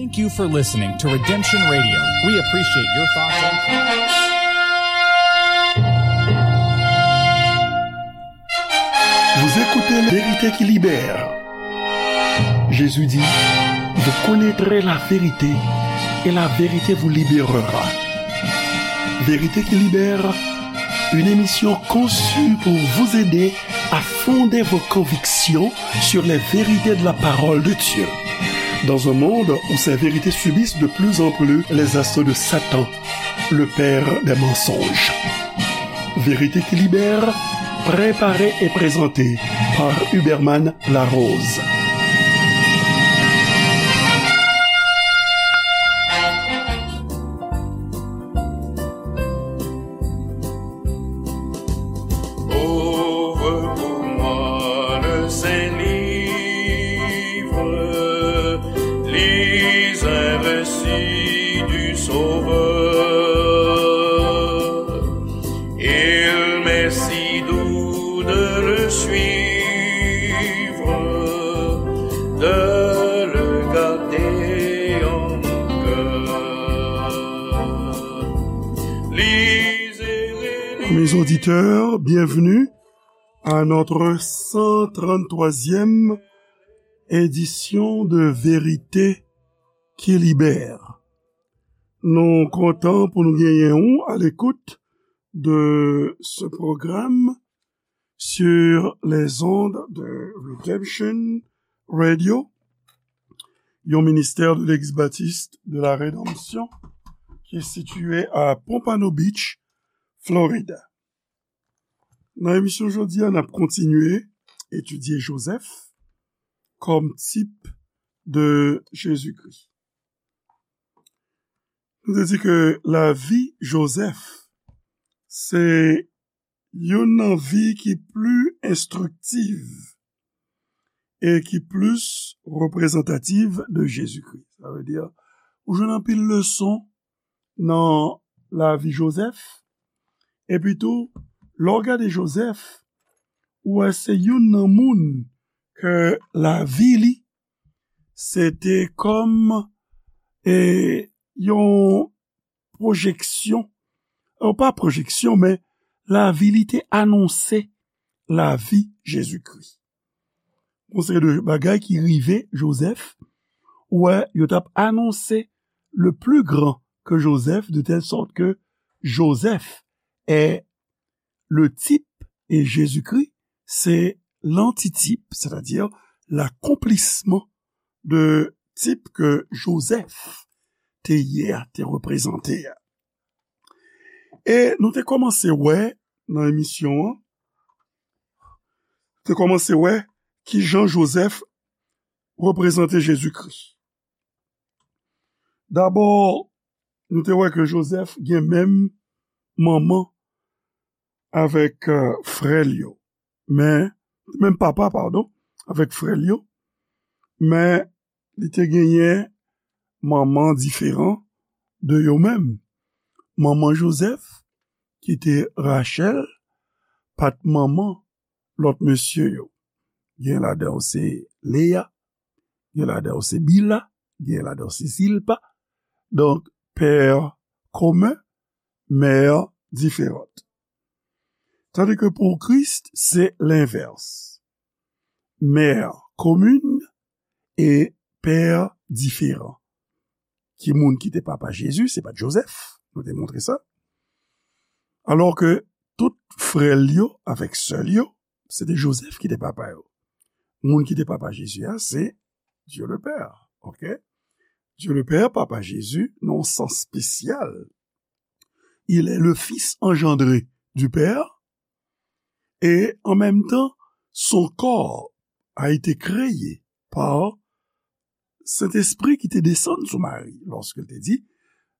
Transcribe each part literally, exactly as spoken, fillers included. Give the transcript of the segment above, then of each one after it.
Thank you for listening to Redemption Radio. We appreciate your thoughts and comments. Vous écoutez La Vérité qui libère. Jésus dit, vous connaîtrez la vérité et la vérité vous libérera. Vérité qui libère, une émission conçue pour vous aider à fonder vos convictions sur les vérités de la parole de Dieu. Dans un monde où ces vérités subissent de plus en plus les assauts de Satan, le père des mensonges. Vérité qui libère, préparée et présentée par Huberman Larose. Ouvre pour moi le saint livre, lis un récit du Sauveur. Il m'est si doux de le suivre, de le garder en mon cœur. Lisez et Mes auditeurs, bienvenue à notre cent trente-troisième édition de Vérité qui libère. Nou kontan pou nou genyen ou à l'écoute de ce programme sur les ondes de Redemption Radio, yon ministère de l'Église baptiste de la Rédemption qui est situé à Pompano Beach, Florida. Nan emisyon jodi a, n ap kontinye etidye Jozèf kòm tip de Jezikri. Nou te di ke lavi Jozèf se youn nan vi ki pli enstriktif e ki plis reprezantatif de Jezikri. Sa vle di, ou jwenn anpil leson nan lavi Jozèf. Epi tou, lè w gade Jozèf, ou wè se youn nan moun ke lavi li, se te kòm, e, yon pwojeksyon, e, pa pwojeksyon, men lavi li te anonse lavi Jezikri. Yon seri de bagay ki rive Jozèf, ou wè, yo t ap anonse le plus grand que Joseph, de telle sorte que Joseph est le type et Jésus-Christ, c'est l'antitype, c'est-à-dire l'accomplissement de type que Joseph te ye a, te reprezante a. E nou te kòmanse wè nan emisyon an, te kòmanse wè ki jan Jozèf reprezante Jezikri. Dabò, nou te wè ke Jozèf gen menm manman avèk, e, frè l yo. Men, menm papa, padon, avèk frè l yo. Men, li te genyen manman diferan de yo menm. Manman Jozèf, ki te Rachèl, pa t manman lòt mesye yo. Gen ladan yo se Leya, gen ladan yo se Bila, gen ladan yo se Zilpa. Donk, pè komen, mè diferan. Tandis que pour Christ, c'est l'inverse. Mère commune et père différent. Ki moun ki te papa Jezi? Se pa t Jozèf. Nou te montre sa. Alò ke tout frè l yo avèk sè l yo, se te Jozèf ki te papa yo. Moun ki te papa Jezi a, se Dieu le Père. Ok? Dieu le Père, papa Jezi, nan yon sans espesyal. Il est le Fils engendré du Père, et en même temps, son corps a été créé par Saint-Esprit qui te descend sous Marie, lorsqu'il te dit,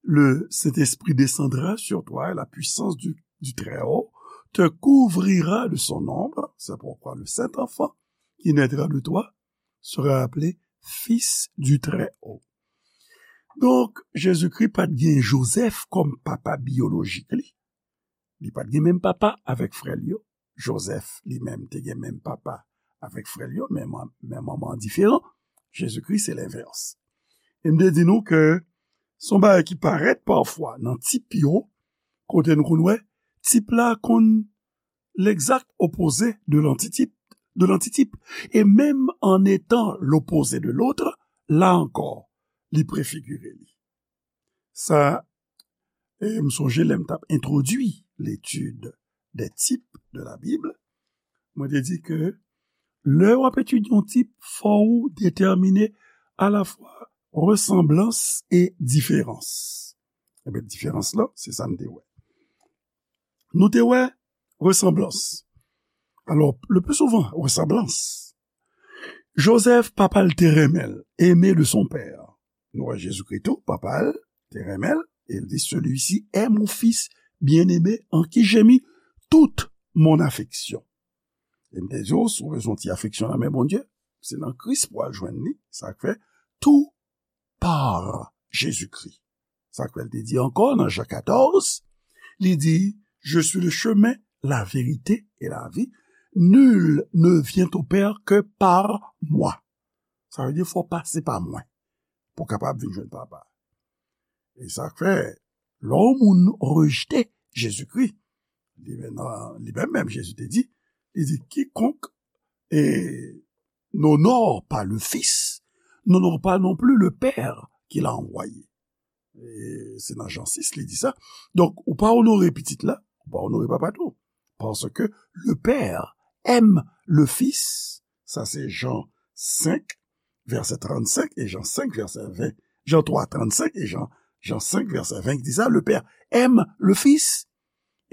le Saint-Esprit descendra sur toi et la puissance du, du Très-Haut te couvrira de son ombre. C'est pourquoi le saint enfant qui naîtra de toi sera appelé Fils du Très-Haut. Donk, Jezikri pa t gen Jozèf kòm papa biyolojik li. Li pa t gen menm papa avèk frè l yo. Jozèf, li menm, te gen menm papa avèk frè l yo, men, men manman an diferan. Jezikri, se lenvès. E m te di nou ke se yon bagay ki parèt pafwa nan tip yo, kote nou konn wè tip la konn legzak opoze de lantitip, de lantitip. E menm an etan lopoze de lot, la ankò, li prefigire li. Sa, e m sonje lè m t ap entwodui l'étude des types de la Bible, mwen te di ke lè w ap etidye yon tip, fò w detèmine alafwa resanblans e diferans. Ebyen, diferans la, se sa n te wè. Nou te wè resanblans. Alò, le pli souvan, resanblans. Joseph, papa l te renmen l, aimé de son père. Nou wè Jezikri tou, papa l te renmen l, e l di, celui-ci est mon fils bien-aimé en qui j'ai mis toute mon affection. E m te di w, si w bezwen yon ti afeksyon nan men Bondye, se nan Kris pou w al jwenn li. Sa k fè, tout par Jezikri. Sa k fè l te di ankò nan Jan katòz, li di, je suis le chemin, la vérité et la vie. Nul ne vient au Père que par moi. Sa vle di, fò w pase pa mwen pou w kapab vin jwenn Papa. E sa k fè, lè yon moun rejte Jezikri, li menm, li menm, menm Jezi te di, li di, quiconque, eh, n'honore pas le Fils, n'honore pas non plus le Père qui l'a envoyé. E se nan Jan sis, li di sa. Donk, ou pa onore pitit la, ou pa onore papa tou. Parce que le Père aime le Fils. Sa se Jan senk, vèsè trannsenk, e Jan senk, vèsè ven. Jan twa, trannsenk, e Jan, Jan senk, vèsè ven, ki di sa, le Père aime le Fils.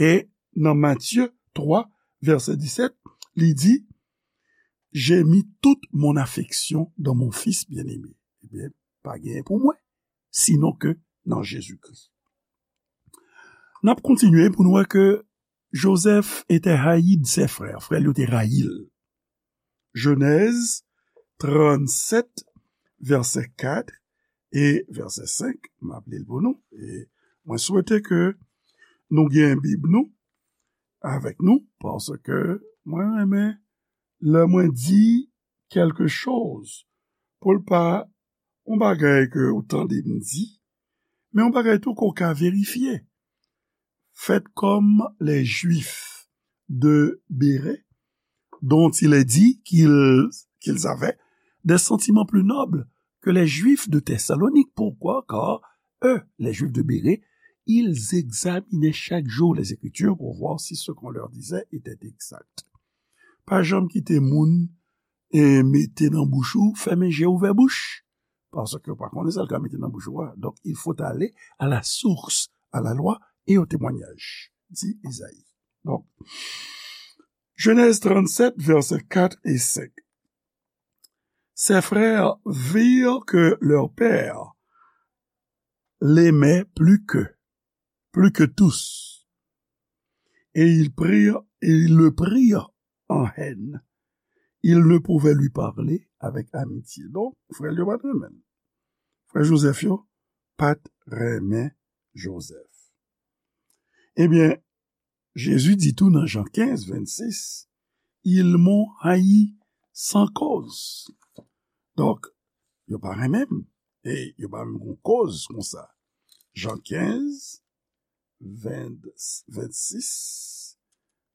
E nan Matye twa, vèsè disèt, li di, j'ai mis toute mon affection dans mon Fils bien-aimé. Ebyen, pa genyen pou mwen, sinon ke nan Jezikri. N ap kontinye pou nou wè ke Joseph était haï de ses frères. Frè l yo te rayi l. Jenèz trannsèt, vèsè kat e vèsè senk. M ap li l pou nou. E mwen swete ke nou gen Bib nou avèk nou, paske mwen renmen lè mwen di quelque chose, pou l pa yon bagay ke ou tande m di, men yon bagay tou ke w ka verifye. Faites comme les Juifs de Bérée, dont il est dit qu'ils, qu'ils avaient des sentiments plus nobles que les Juifs de Thessalonique. Pourquoi ? Car eux, les Juifs de Bérée, ils examinaient chaque jour les Écritures pour voir si ce qu'on leur disait était exact. Pa janm kite moun e mete nan bouch ou, fèmen je, ouvè bouch. Paske w pa konnen sa l ka mete nan bouch ou a. Donc, il faut aller à la source, à la loi et au témoignage, di Ezayi. Donk, Genèse trente-sept, versets quatre et cinq. Ses frères virent que leur père l'aimait plus qu'eux, plus que tous. Et ils prirent, et ils le prirent en haine. Ils ne pouvaient lui parler avec amitié. Donk, frè l yo pa t renmen l. Frè Jozèf yo pa t renmen Jozèf. Ebyen, Jezi di tou nan Jan kenz, vennsis, ils m'ont haï sans cause. Donk, yo pa renmen m. E yo pa menm gon koz konsa. Jan kenz, ven, vennsis,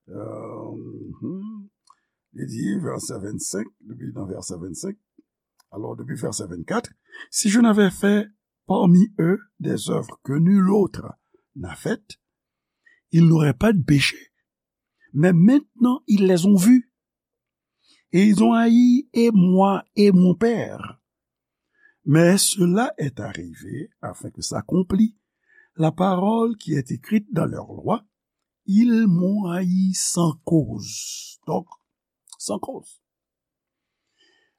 euh, mhm. Li di, vèsè vennsenk, depi nan vèsè vennsenk, alò, depi vèsè vennkat, si je n'avais fait parmi eux des œuvres que nul autre n'a faites, ils n'auraient pas de péché. Mais maintenant, ils les ont vues. Et ils ont haï et moi et mon Père. Mais cela est arrivé afin que s'accomplît la parole qui est écrite dans leur loi, ils m'ont haï sans cause. Donk, san koz.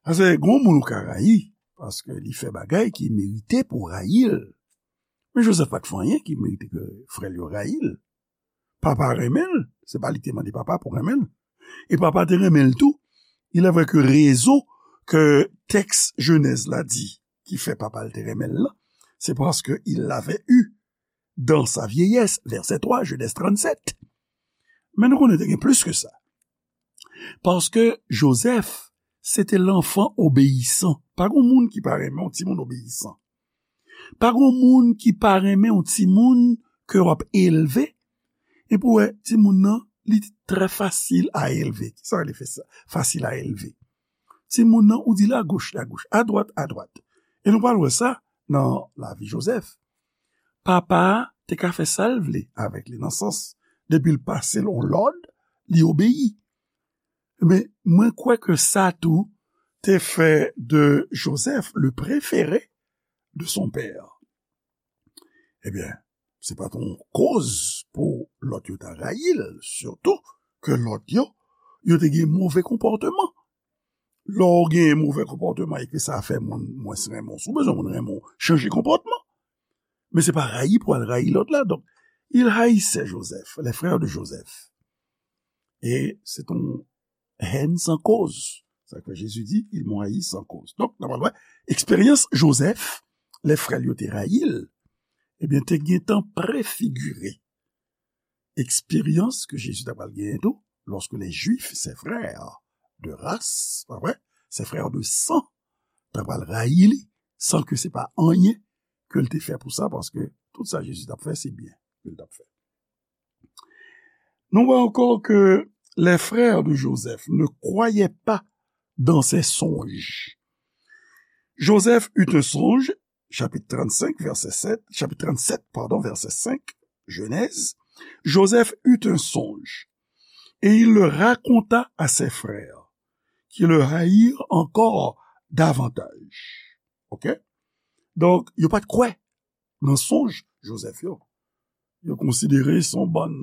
Paske gon moun ou ka rayi, paske li fè bagay ki merite pou rayi l. Men Jozèf pa t fè anyen ki merite ke frè l yo rayi l. Papa renmen l, se pa li te mande papa pou renmen l. E papa te renmen l tou. Il est vrai que rezon ke tèks Jenèz la di ki fè papa l te renmen l lan, se paske il l'avait eu dans sa vieillesse, vèsè twa, Genèse trannsept. Men nou konnen te gen plis ke sa. Paske Jozèf, se te lanfan obeyisan. Pa gen moun ki pa renmen yon timoun obeyisan. Pa gen moun ki pa renmen yon timoun ke w ap elve, epi w wè timoun nan, li trè fasil a elve. Kisa w rele fè sa? Fasil a elve. Timoun nan, ou di l agoch, agoch, adwat, adwat. E nou pral wè sa nan lavi Jozèf. Papa a te ka fè sa l vle avèk li, nan sans, depi l pase l yon lòd, li obeyi. Men, mwen kwè ke sa tou te fè de Joseph le préféré de son père. Ebyen, se pa t yon koz pou lòt yo ta rayi l, sitou ke lòt yo, yo te gen move konpòteman. Lè w gen move konpòteman e ke sa fè moun mwens renmen w, si w bezwen moun renmen w, chanje konpòtman. Men se pa rayi pou al rayi lòt la. Donk, il haïssait Joseph, les frères de Joseph. E se t yon hèn san koz. Sa k fè Jezi di, ils m'ont haï sans cause. Donk, nòmalman, eksperyans Jozèf, lè frè l yo te rayi l, ebyen, te gentan prefigire eksperyans ke Jezi ta pral genyen tou, lorsque les Juifs, ses frères de race, pa vre, ses frères de sang, ta pral rayi li, san ke se pa anyen ke l te fè pou sa, paske tout sa Jezi t ap fè, se byen ke l t ap fè. Nou wè ankò ke les frères de Joseph ne croyaient pas dans ses songes. Joseph eut un songe, chapitre trente-cinq, verset sept, chapitre trente-sept, pardon, verset cinq, Genèse. Joseph eut un songe, et il le raconta à ses frères, qui le haïrent encore davantage. Ok? Donk, yo pa t kwè nan sonj Jozèf yo. Yo konsidere se yon bann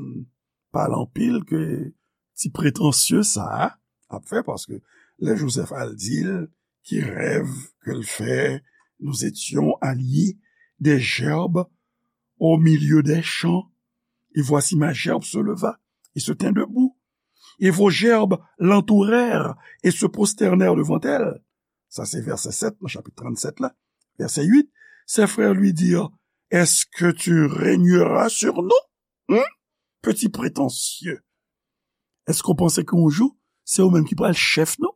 pale anpil ke ti pretansye sa a ap fè, paske lè Jozèf al di l ki rèv ke l fè, nous étions alliés des gerbes au milieu des champs, et voici ma gerbe se leva et se tint debout, et vos gerbes l'entourèrent et se prosternèrent devant elle. Sa se vèsè sèt nan chapit tranntsèt la. Vèsè uit, ses frères lui dirent, est-ce que tu régneras sur nous? Hmm? Petit prétentieux. Èske w panse ke yon jou, se ou menm ki pral chèf nou?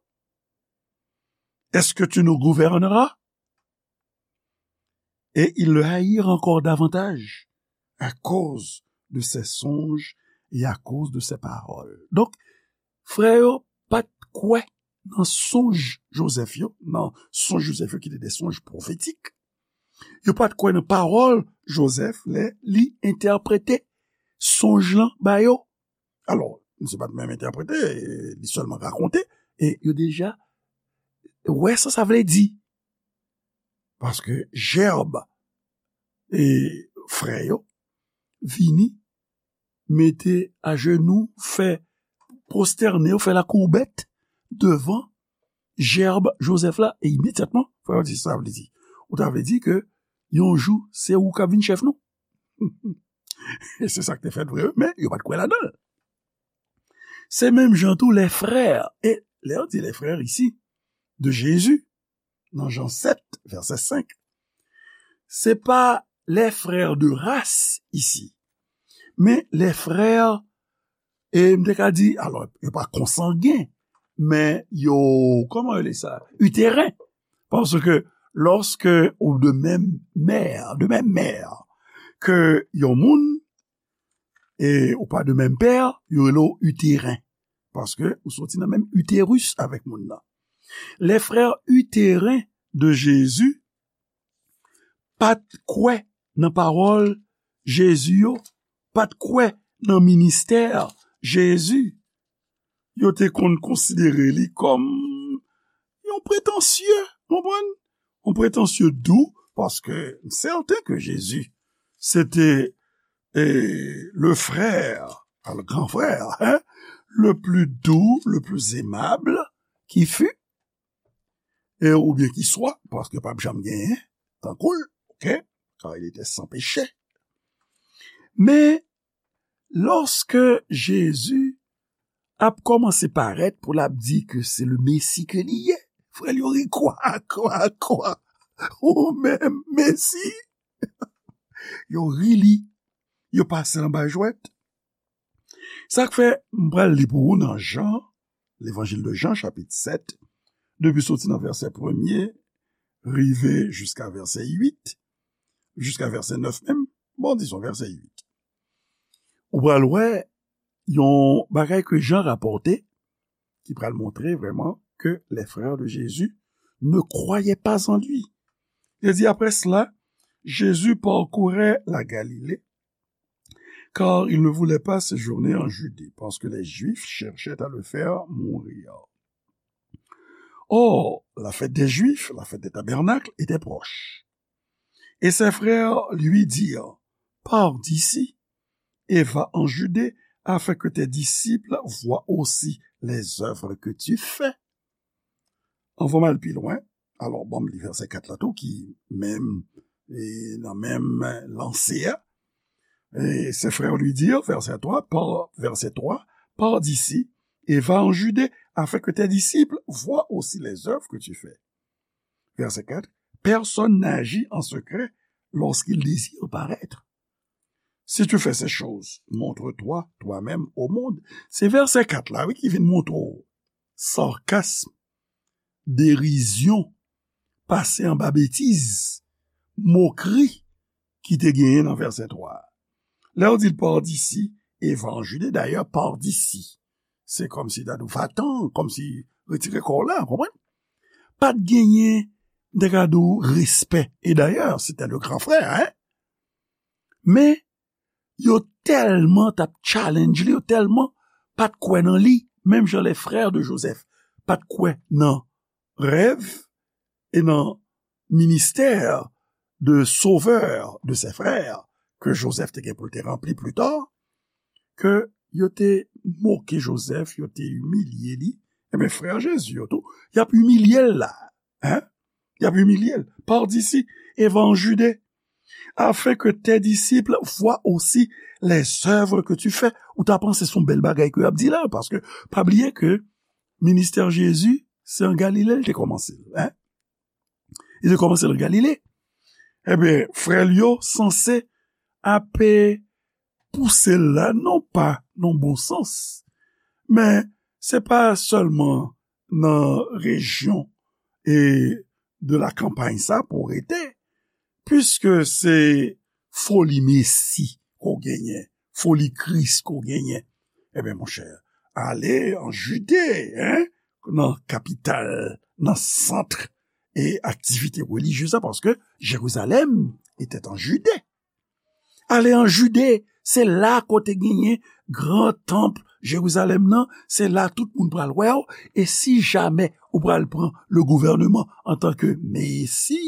Est-ce que tu nous gouverneras? Et ils le haïrent encore davantage à cause de ses songes et à cause de ses paroles. Donk, frè yo pa t kwè nan sonj Jozèf yo, nan sonj Jozèf yo ki te de sonj pwofetik. Yo pa t kwè nan pawòl Jozèf lè li entèprete sonj lan ba yo. Alò, misye pa t menm entèprete, li sèlman rakonte, e yo deja wè sa sa vle di. Paske jèb e frè yo vini mete ajenou, fè pwostène yo, fè lakourbèt devan jèb Jozèf la, e imedyatman, frè yo di, sa vle di, ou ta vle di ke yon jou, se ou k ap vin chèf nou. E se sa k te fèt vre, men yo pa t kwè ladan l. Se menm jan tou les frères, e lè yo di les frères isi, de Jésus, nan Jan sèt, vèsè senk, se pa les frères de race isi, men les frères, e m te ka di, alò, yo pa konsangen, men yo, kòman yo rele sa? Iteren. Paske lòske ou de menm mè, de menm mè ke yon moun, e ou pa de menm pè, yo rele w iteren. Paske ou soti nan menm iteris avèk moun nan. Les frères utérins de Jésus pa t kwè nan pawòl Jezi yo, pa t kwè nan ministè Jezi. Yo te konn konsidere li kòm yon pretansye, konprann? Yon pretansye dou, paske m sèten ke Jezi, se te, e, le frère, le grand frère, hein, le plus doux, le plus aimable qui fut, e, oubyen ki swa, paske p ap janm genyen tankou l, ok? Car il était sans péché. Men, lòske Jezi ap kòmanse parèt pou l ap di ke se le Mesi ke li ye, frè l yo ri, kwa, kwa, kwa? Ou menm, Mesi? Yo ri li, yo pase l anba jwèt. Sa k fè m pral li pou ou nan Jan, Levanjil de Jan, chapit sèt, depi soti nan vèsè premye, rive jiska vèsè uit, jiska vèsè nèf menm, bon, dizon vèsè uit. Ou pral wè yon bagay ke Jan rapòte, ki pral montre vrèman que les frères de Jésus ne croyaient pas en lui. Il dit, après cela, Jésus parcourait la Galilée, car il ne voulait pas séjourner en Judée, parce que les Juifs cherchaient à le faire mourir. Or, la fête des Juifs, la fête des tabernacles, était proche. Et ses frères lui dirent, pars d'ici et va en Judée, afin que tes disciples voient aussi les œuvres que tu fais. Anvan m al pi lwen, alò, bon, m li vèsè kat la tou, ki menm, e nan menm lanse a. Et ses frères lui dirent, verset trois, par, verset trois, pars d'ici et va en Judée, afin que tes disciples voient aussi les œuvres que tu fais. Verset quatre, personne n'agit en secret lorsqu'il désire paraître. Si tu fais ces choses, montre-toi toi-même au monde. Se vèsè kat la, wi, ki vin montre w sarkasm, derizyon, pase anba betiz, mokri ki te genyen nan vèsè twa a. Lè yo di l, pars d'ici et va en Judée, dayè, pars d'ici, se kòmsi ta di w va-t'en, kòmsi retire kò w la, konprann? Pa t genyen, m te ka di w, respè. E dayè, se te le gran frè, hein? Men, yo tèlman t ap challenge li, yo tèlman pa t kwè nan li, menm jan les frères de Joseph pa t kwè nan rèv e nan ministè de sovè de ses frères ke Joseph te gen pou l te ranpli pli ta, ke yo te moke Joseph, yo te imilye li. Ebyen, frè Jezi yo tou, y ap imilye l la. Hein? Y ap imilye l. Pars d'ici et va en Judée, afin que tes disciples voient aussi les œuvres que tu fais. Ou ta panse se yon bèl bagay ke y ap di la, paske pa bliye ke ministè Jezi, se an Galile l te kòmanse l, hein? Li te kòmanse l an Galile. Ebyen, frè l yo sanse ap pouse l la, non pa nan bon sans, men se pa sèlman nan rejyon e de la kanpay sa pou w rete, piske se foli Mesi ke w genyen, foli Kris ke w genyen. Ebyen, monchè, ale an Jide, hein, nan kapital, nan sant e aktivite relijyez la, paske Jerizalèm etait an Jide. Ale an Jide, se la kote genyen gran tanp Jerizalèm nan, se la tout moun pral wè w, e si jamè ou pral pran le gouvèneman antanke Mesi,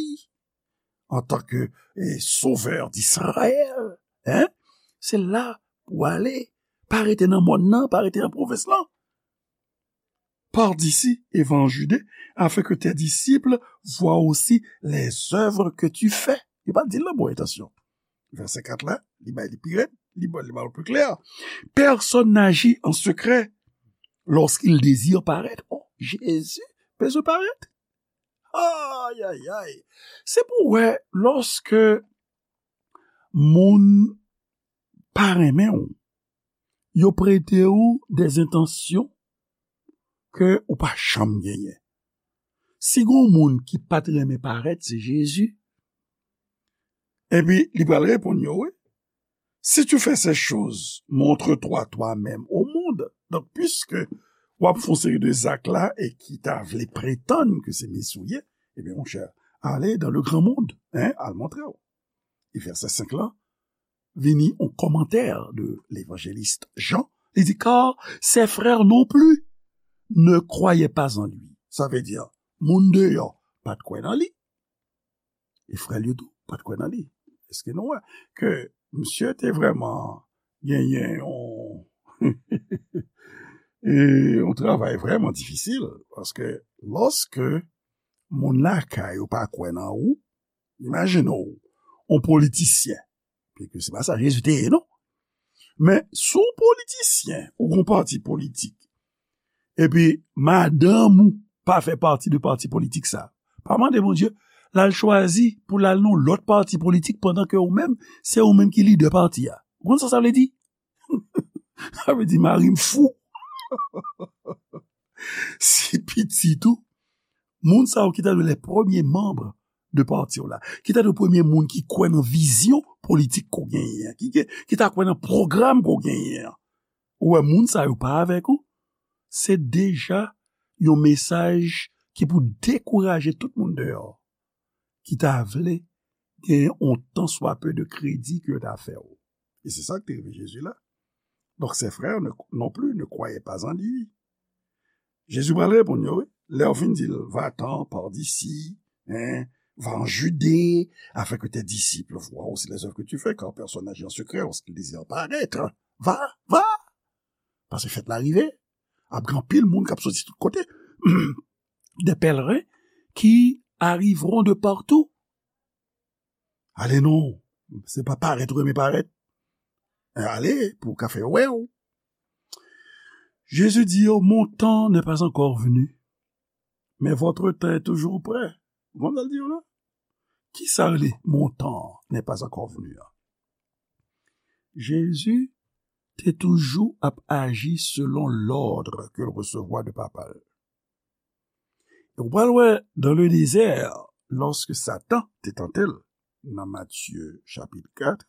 antanke, e, Sovè d'Izrayèl, hein, se la pou w ale, pa rete nan mòn nan, pa rete nan pwovens lan. Pars d'ici et va en Judée, afin que tes disciples voient aussi les œuvres que tu fais. Li pa di l nan bon entansyon. Vèsè kat la, li bay li pi rèd, li ba, li ba l pi klè. Personne n'agit en secret lorsqu'il désire paraître. Oh, Jezi bezwen parèt. Ay, ay, ay. Se pou wè, lòske moun pa renmen w, yo prete w de entansyon ke ou pa janm genyen. Si gon moun ki pa t renmen parèt, se Jezi. Epi, li pral reponn yo, wi. Si tu fais ces choses, montre-toi toi-même au monde. Donk, piske w ap fè yon seri de zak la e ki ta vle pretann ke se Mesi w ye, ebyen, monchè, ale dans le grand monde, hein, al montre w. E vèsè senk lan, vini yon kòmantè de levanjelis Jan. Li di, car ses frères non plus ne croyaient pas en lui. Sa vle di, moun deyò pa t kwè nan li. E frè l yo tou pa t kwè nan li. Èske nou wè ke misye te vrèman genyen yon, e, yon travay vrèman difisil? Paske lòske moun lakay ou pa kwè nan ou, imajine w, yon politisyen, piske se pa sa Jezi te ye, non. Men, si w politisyen, ou gon pati politik, epi madanm ou pa fè pati de pati politik sa, pa mande Bondye l al chwazi pou l al nan lòt pati politik pandan ke ou menm, se ou menm ki lidè pati a. Ou konn sa sa vle di? Sa vle di mari m fou. Si pitit ou, moun sa yo ki ta dwe les premiers membres de pati w la. Ki ta dwe premye moun ki kwè nan vizyon politik ke w genyen an, ki, ki, ki ta kwè nan pwogram ke w genyen an. Ou wè, moun sa yo pa avèk ou, se deja yon mesaj ki pou dekouraje tout moun deyò ki ta vle gen yon tan swa pe de kredi ke yo ta fè w. E se sa ki te rive Jezi la. Donc ses frères ne, non plus ne croyaient pas en lui. Jezi pral reponn yo, wi. Lè yo fin di l, va-t'en, pars d'ici, hein, va en Judée, afin que tes disciples voient aussi les œuvres que tu fais, car personne n'agit en secret lorsqu'il désire paraître. Va, va! Paske fèt la rive, ap gen anpil moun k ap soti tout kote. Des pèlerins qui arriveront de partout. Ale non, se pa parèt ou renmen parèt. Ale pou w ka fè yo wè w. Jésus dit, mon temps n'est pas encore venu, mais votre temps est toujours près. Ou konn sa l di yo la? Kisa rele mon temps n'est pas encore venu an? Jezi te toujou ap aji selon lòd ke l resevwa de Papa l. E w pral wè, dans le désert, lorsque Satan te tante l, nan Matye chapit kat,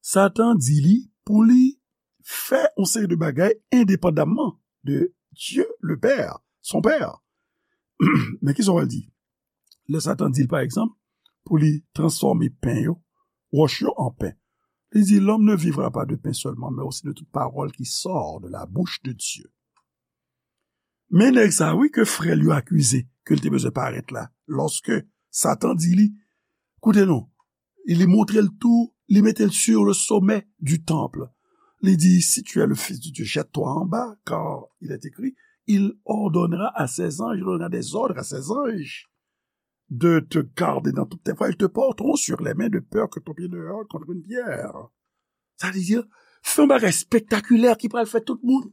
Satan di li pou li fè yon seri de bagay endepandamman de Dieu le Père, son Père. Men kisa w pral di? Lè Satan di l, pa egzanp, pou li transfòme pen yo, wòch yo an pen. Li di, l'homme ne vivra pas de pain seulement, mais aussi de toute parole qui sort de la bouche de Dieu. Men nèg sa, wi, ke frè l yo akize, ke l te bezwen parèt la, lòske Satan di li, koute non, li montre l tou, li mete l sur le sommet du temple. Li di, si tu es le fils de Dieu, jette-toi en bas, car il est écrit, il ordonnera à ses anges, il donnera des ordres à ses anges de te garder dans toutes tes voies, ils te porteront sur les mains de peur que ton pied ne heurte contre une pierre. Sa vle di, fè yon bagay spektakilè ki pral fè tout moun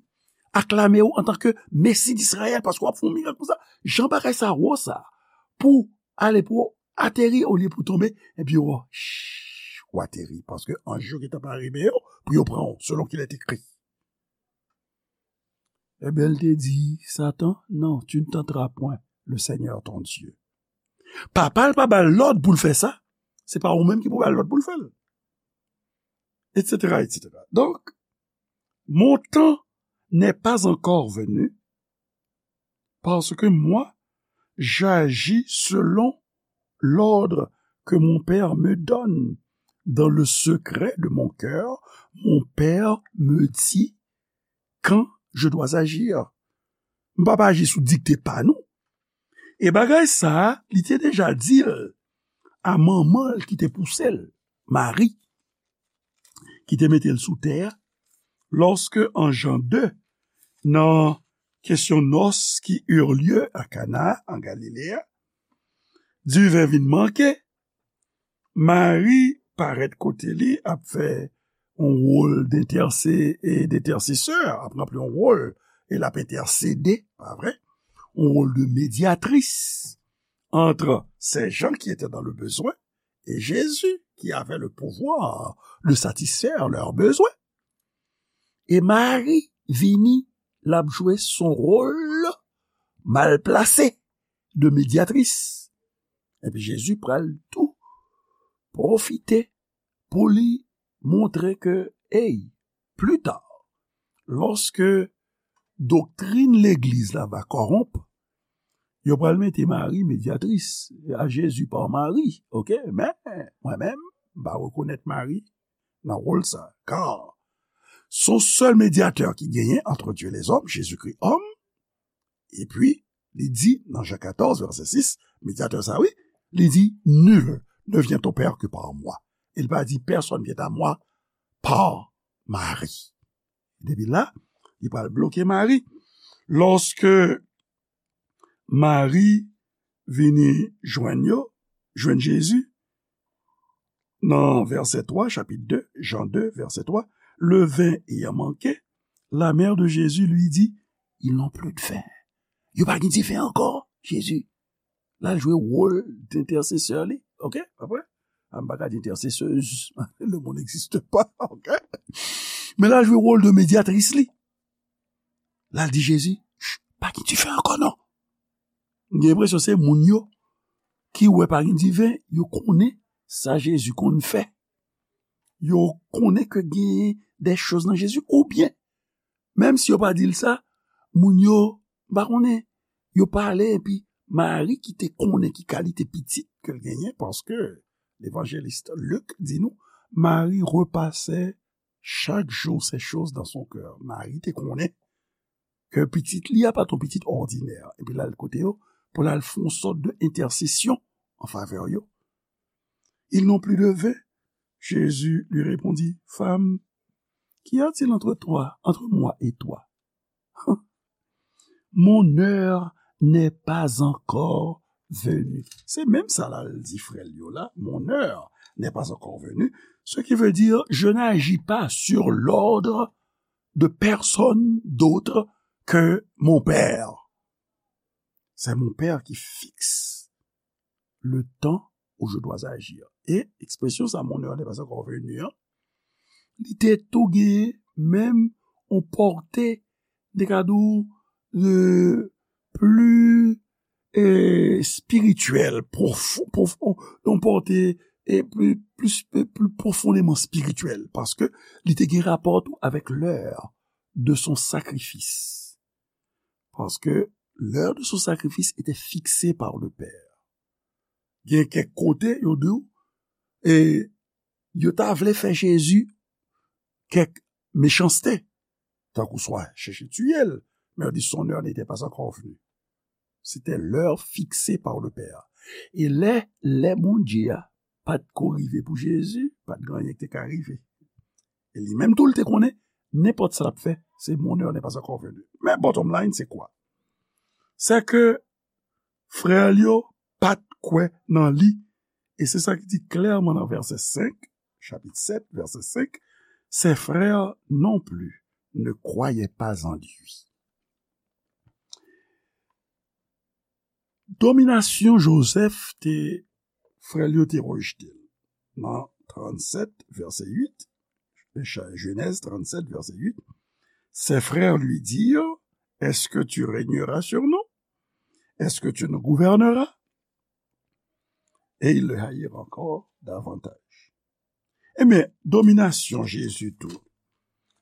aklame w antanke Mesi d Izrayèl, paske w ap fè yon mirak konsa. Jan bagay sa wo sa, pou ale pou w ateri olye pou w tonbe, epi w, w ateri, paske anj yo gentan pare men yo pou yo pran w, selon qu'il est écrit. Ebyen, l te di, Satan, non, tu ne tenteras point le Seigneur ton Dieu. Papa l pa ba l lòd pou l fè sa, se pa ou menm ki pou ba l lòd pou l fè l. Et cetera, et cetera. Donc, mon temps n'est pas encore venu, parce que moi, j'agis selon l'ordre que mon Père me donne. Dans le secret de mon cœur, mon Père me dit quand je dois agir. M pa pa aji sou dikte pa nou. E bagay sa a, li te deja di l a manman l ki te pouse l, Mari, ki te mete l sou tè a, lòske an Jan de, nan kesyon nòs qui eurent lieu à Cana, en Galilée, diven vin manke, Mari parèt kote li, ap fè yon wòl d'entèse-, e, d'entèsesè, ap ranpli yon wòl, e l ap entèsede, pa vre? Yon wòl de medyatris entre ces gens qui étaient dans le besoin et Jésus, qui avait le pouvoir de satisfaire leurs besoins. E Mari vini, l ap jwe son wòl mal plase de medyatris. Epi Jezi pral tou pwofite pou li montre ke, ey, pli ta, lòske doktrin legliz la va kòwonp, yo pral mete Mari medyatris, à Jésus par Marie, oke? Men, mwen menm, m pa rekonèt Mari nan wòl sa, car son sèl medyatè ki genyen entre Dieu et les hommes, Jésus-Christ homme, epi li di nan Jan katòz, vèsè sis, medyatè sa, wi, li di, nul ne vient au Père que par moi. E l pa di, personne vient à moi par Marie. Depi la, li pral bloke Mari. Lòske Mari vini jwenn yo, jwenn Jezi, nan vèsè twa, chapit de, Jan de, vèsè twa, le vin ayant manqué, la mère de Jésus lui dit, ils n'ont plus de vin. Yo pa gen diven ankò, Jezi. L al jwe wòl d'entèsesè li, oke? Apre, a, m pa ka di entèsesèz, le mot n'existe pas, oke? Men l al jwe wòl de medyatris li. L al di Jezi, ch, pa gen diven ankò non. M gen enpresyon se moun yo ki wè pa gen diven, yo konnen sa Jezi konn fè. Yo konnen ke gen de choz nan Jezi, oubyen, menm si yo pa di l sa, moun yo, m pa konnen, yo pale, epi Mari ki te konnen ki kalite pitit ke l genyen, paske levanjelis Lik di nou, Mari repase chaque jour ces choses dans son cœur. Mari te konnen ke pitit li a pa t yon pitit òdinè. Epi l al kote yo pou l al fè yon sòt de entèsesyon an favè yo. Ils n'ont plus de vin. Jésus lui répondit, Femme, qu'y a-t-il entre toi, entre moi et toi? Mon heure n'est pas encore venue. Se menm sa la l di frè l yo la, Mon heure n'est pas encore venue, ce qui veut dire, je n'agis pas sur l'ordre de personne d'autre que mon Père. C'est mon Père qui fixe le temps où je dois agir. E ekspresyon sa, Mon heure n'est pas encore venue, an, li te tou gen menm yon pòte, de ka di w, euh, pli, euh, spirityèl, pwofon, pwofon, yon pòte, euh, pli, pli, pli pwofondèman spirityèl, paske li te gen rapò tou avèk lè de son sakrifis. Parce que l'heure de son sacrifice était fixée par le Père. Gen kèk kote, yo di w, e yo ta vle fè Jezi kèk mechanste, tankou swa chèche tiye l, men yo di, son heure n'était pas encore venue. C'était l'heure fixée par le Père. E lè, lè Bondye a pa t ko rive pou Jezi, pa t gen anyen ki te ka rive. E li menm tou, l te konnen, nenpòt sa l ap fè, se mon heure n'est pas encore venue. Men bottom line, se kwa? Se ke frè l yo pa t kwè nan li. E se sa ki di klèman nan vèsè senk, chapit sèt, vèsè senk, Ses frères non plus ne croyaient pas en lui. Dominasyon Jozèf te, frè l yo te rejte l. Nan trannsèt, vèsè uit, Jenèz trannsèt, vèsè uit, ses frères lui dirent, Est-ce que tu régneras sur nous? Est-ce que tu nous gouverneras? Et ils le haïrent encore davantage. Ebyen, dominasyon Jezi tou,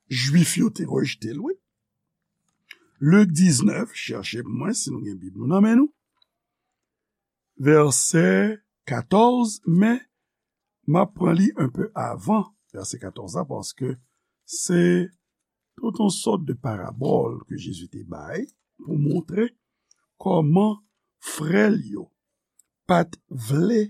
Jwif yo te rejte l, wi. Lik diznèf, chèche pou mwen si nou gen Bib nou nan men nou. Vèsè katòz, men m ap pran li enpe avan vèsè katòz la, paske se tout yon sòt de parabòl ke Jezi te bay pou montre kòman frè l yo pa t vle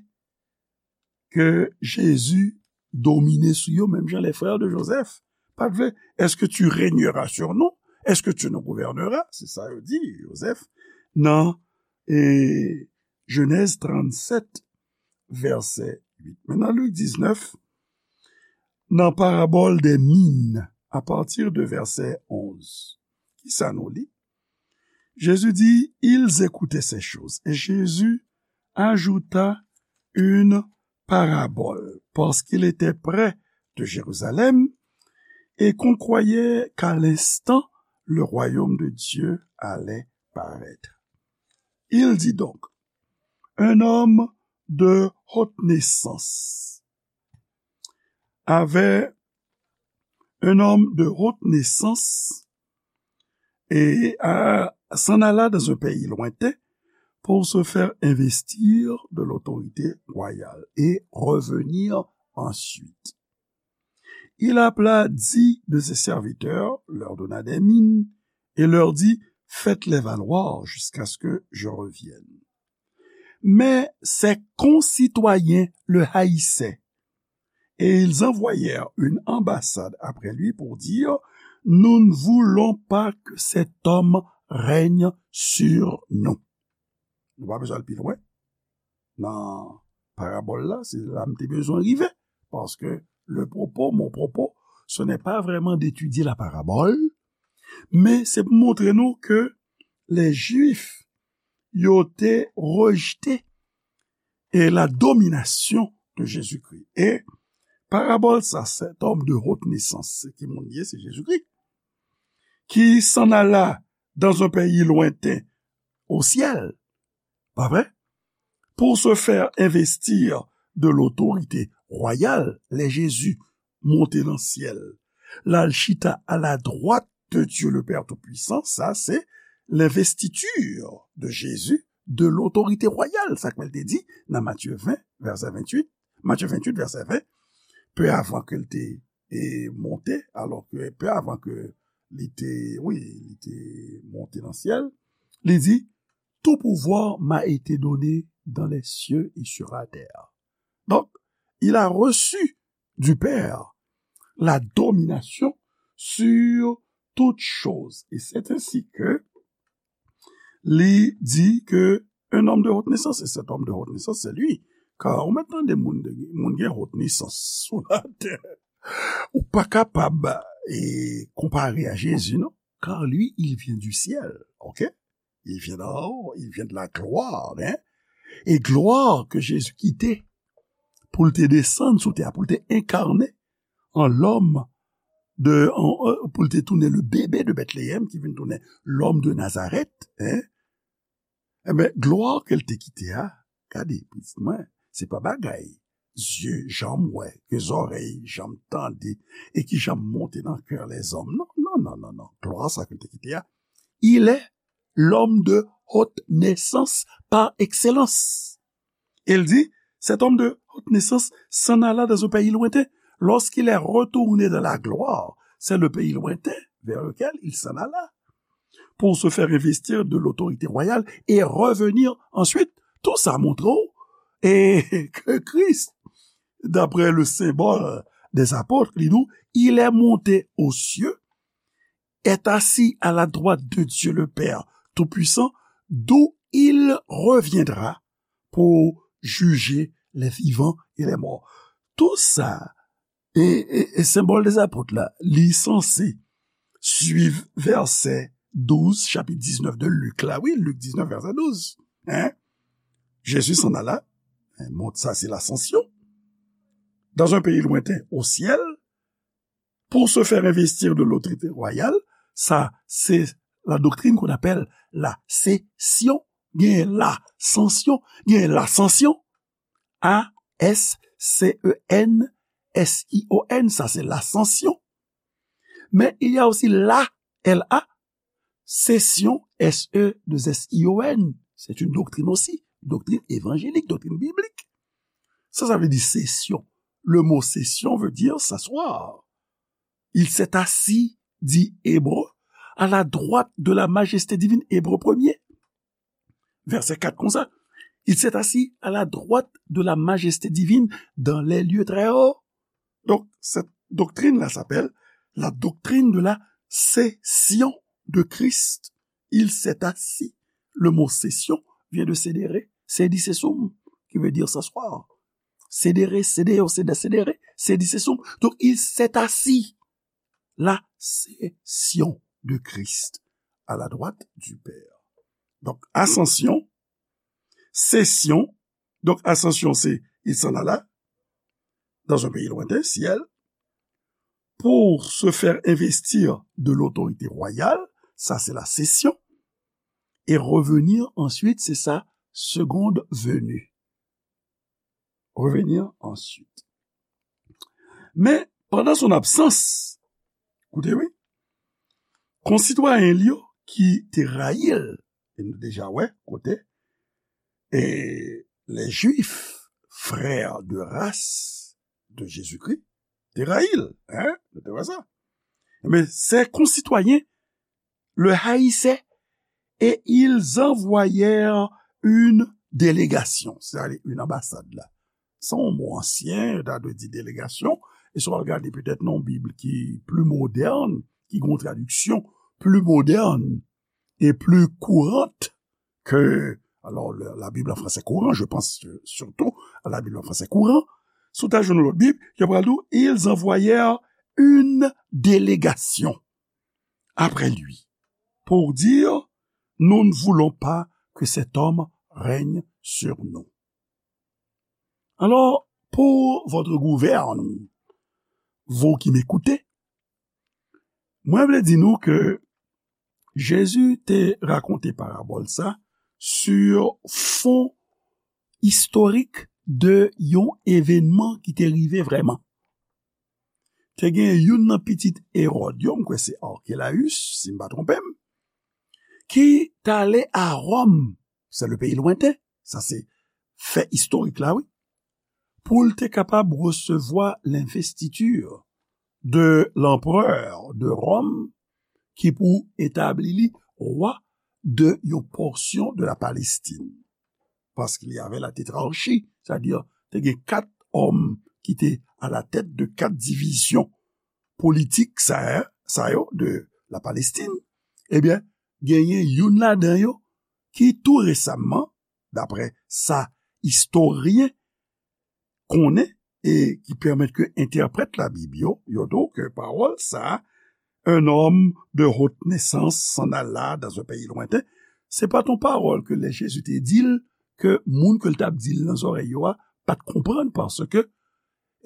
ke Jezi domine sou yo, menm jan les frères de Joseph pa t vle. Est-ce que tu régneras sur nous? Est-ce que tu nous gouverneras? Se sa yo di Jozèf nan, e, Jenèz trannsèt, vèsè uit. Men nan Lik diznèf, nan parabòl dè min, apati de vèsè onz, kisa nou li? Jésus dit, ils écoutaient ces choses. Et Jésus ajouta une parabole, parce qu'il était près de Jérusalem et qu'on croyait qu'à l'instant le royaume de Dieu allait paraître. Il dit donc, un homme de haute naissance avait, un homme de haute naissance et a, s'en alla dans un pays lointain pour se faire investir de l'autorité royale et revenir ensuite. Il appela dix de ses serviteurs, leur donna des mines et leur dit, faites-les valoir jusqu'à ce que je revienne. Mais ses concitoyens le haïssaient et ils envoyèrent une ambassade après lui pour dire, nous ne voulons pas que cet homme règne sur nous. Nou pa bezwen al pi lwen nan parabòl la, se la m te bezwen rive, paske le propos, mon propos, ce n'est pas vraiment d'étudier la parabole, men se pou montre nou ke les Juifs yo te rejte e la domination de Jésus-Christ. E parabòl sa, cet homme de haute naissance, se ki moun ye, se Jezikri, qui s'en alla dans un pays lointain au ciel, pa vre? pour se faire investir de l'autorité royale, lè Jezi monte nan syèl, l al chita à la droite de Dieu le Père Tout-Puissant, sa se l'investiture de Jésus de l'autorité royale, sa k te di nan Matye ven, vèsè venntuit, Matye venntuit, vèsè ven, pe avan ke l te e monte, alò ke pe avan ke li te, wi, li te monte nan syèl, li di, tout pouvoir m'a été donné dans les cieux et sur la terre. Donc, il a reçu du Père la domination sur toutes choses. Et c'est ainsi que li di ke un homme de haute naissance, et cet homme de haute naissance, c'est lui. Car ou mèt tande moun, de, moun gen haute naissance sou latè. Ou pa kapab e, konpare a Jezi, non. Car lui, il vient du ciel, ok? Il vient d'en haut, il vient de la gloire, hein? E glwa ke Jezi kite pou l te desann sou tè a, pou l te enkarne an lòm de, an, euh, pou l te tounen le bebe de Bethléem, ki vin tounen l'homme de Nazareth, hein? Enben, glwa ke l te kite a, gade, pitit mwen, se pa bagay zye janm wè, ke zòrèy janm tande, e ki janm monte nan kè lèzòm. Non, non, non, non, non. Glwa sa ke l te kite a, il est l'homme de haute naissance par excellence. Il dit, cet homme de haute naissance s'en alla dans un pays lointain. Lorsqu'il est retourné dans la gloire, c'est le pays lointain vers lequel il s'en alla pour se faire investir de l'autorité royale et revenir ensuite. Tout sa montre w e ke Kris, d'après le symbole des apôtres, li di w, il est monté aux cieux, est assis à la droite de Dieu le Père Tout-Puissant, d'où il reviendra pour juger les vivants et les morts. Tout sa, e, e, e senbòl dè apot la, li sanse suiv vèsè douz, chapit diznèf de Lik la. Wi, Lik diznèf, vèsè douz. Hein? Jésus s'en alla. Hein, mont, sa se lasansyon. Dans un pays lointain, au ciel, pour se faire investir de l'autorité royale, sa se la doctrine qu'on appelle la session, gen lasansyon, gen lasansyon, A S C E N S I O N, sa se lasansyon. Men il y a aussi la, L A, session, S E deux S I O N. C'est une doctrine aussi, doctrine évangélique, doctrine biblique. Sa, sa vle di session. Le mot session veut dire s'asseoir. Il s'est assis, dit Hébreu, à la droite de la majesté divine, Hébreu premier. Vèsè kat konsa, il s'est assis à la droite de la majesté divine dans les lieux très hauts. Donc, cette doctrine-là s'appelle la doctrine de la session de Christ. Il s'est assis. Le mot session vient de sedere, sedi sesum, qui veut dire s'asseoir. Sedere, sedeo, seda, sedere, sedi sesum. Donc, il s'est assis. La session de Christ à la droite du Père. Donc, ascension, session. Donc, ascension, c'est, il s'en alla dans un pays lointain, ciel, pour se faire investir de l'autorité royale, ça c'est la session, et revenir ensuite, c'est sa seconde venue. Revenir ensuite. Men, pandan son absans, koute wi, konsitwayen l yo ki te rayi l, e nou deja wè kote, e les Juifs, frères de race de Jésus-Christ, te rayi l, hein? Nou te wè sa. Men, ses concitoyens le haïssaient et ils envoyèrent une délégation, c'est-à-dire une ambassade la. Se yon mo ansyen, yo ta dwe di delegasyon, e si w al gade petèt nan yon Bib ki pli modèn, ki gen yon tradiksyon pli modèn e pli kourant ke, alors, le, la Bible en français courant, je pense euh, surtout à la Bible en français courant, si w ta jwenn lòt Bib, yo pral di w, ils envoyèrent une délégation après lui, pour dire, nous ne voulons pas que cet homme règne sur nous. Alors, pour votre gouverne, vous qui m'écoutez, mwen vle di nou ke Jezi te rakonte parabòl sa sur fond istorik de yon evènman ki te rive vrèman. Te gen youn nan pitit Ewòd yo, m kwè se Arkelayis, si m pa twonpe m, ki t ale a Wòm, se le peyi lwenten, sa se fè istorik la, wi, pou l te kapab resevwa lenvestitir de lanperè de Wòm ki pou etabli li wa de yon pòsyon de la Palestine. Parce qu'il y avait la tétrarchie, c'est-à-dire te gen kat òm ki te a la tèt de kat divizyon politik sa, sa yo de la Palestine. Ebyen, genyen youn ladan yo ki tou resaman, daprè sa istoryen konnen e ki pèmèt ke entèprèt Labib yo, yo di w ke pawòl sa, un homme de haute naissance s'en alla dans un pays lointain, se pa t yon pawòl ke lè Jezi te di l, ke moun ke l t ap di l nan zòrèy yo a pa t konprann, paske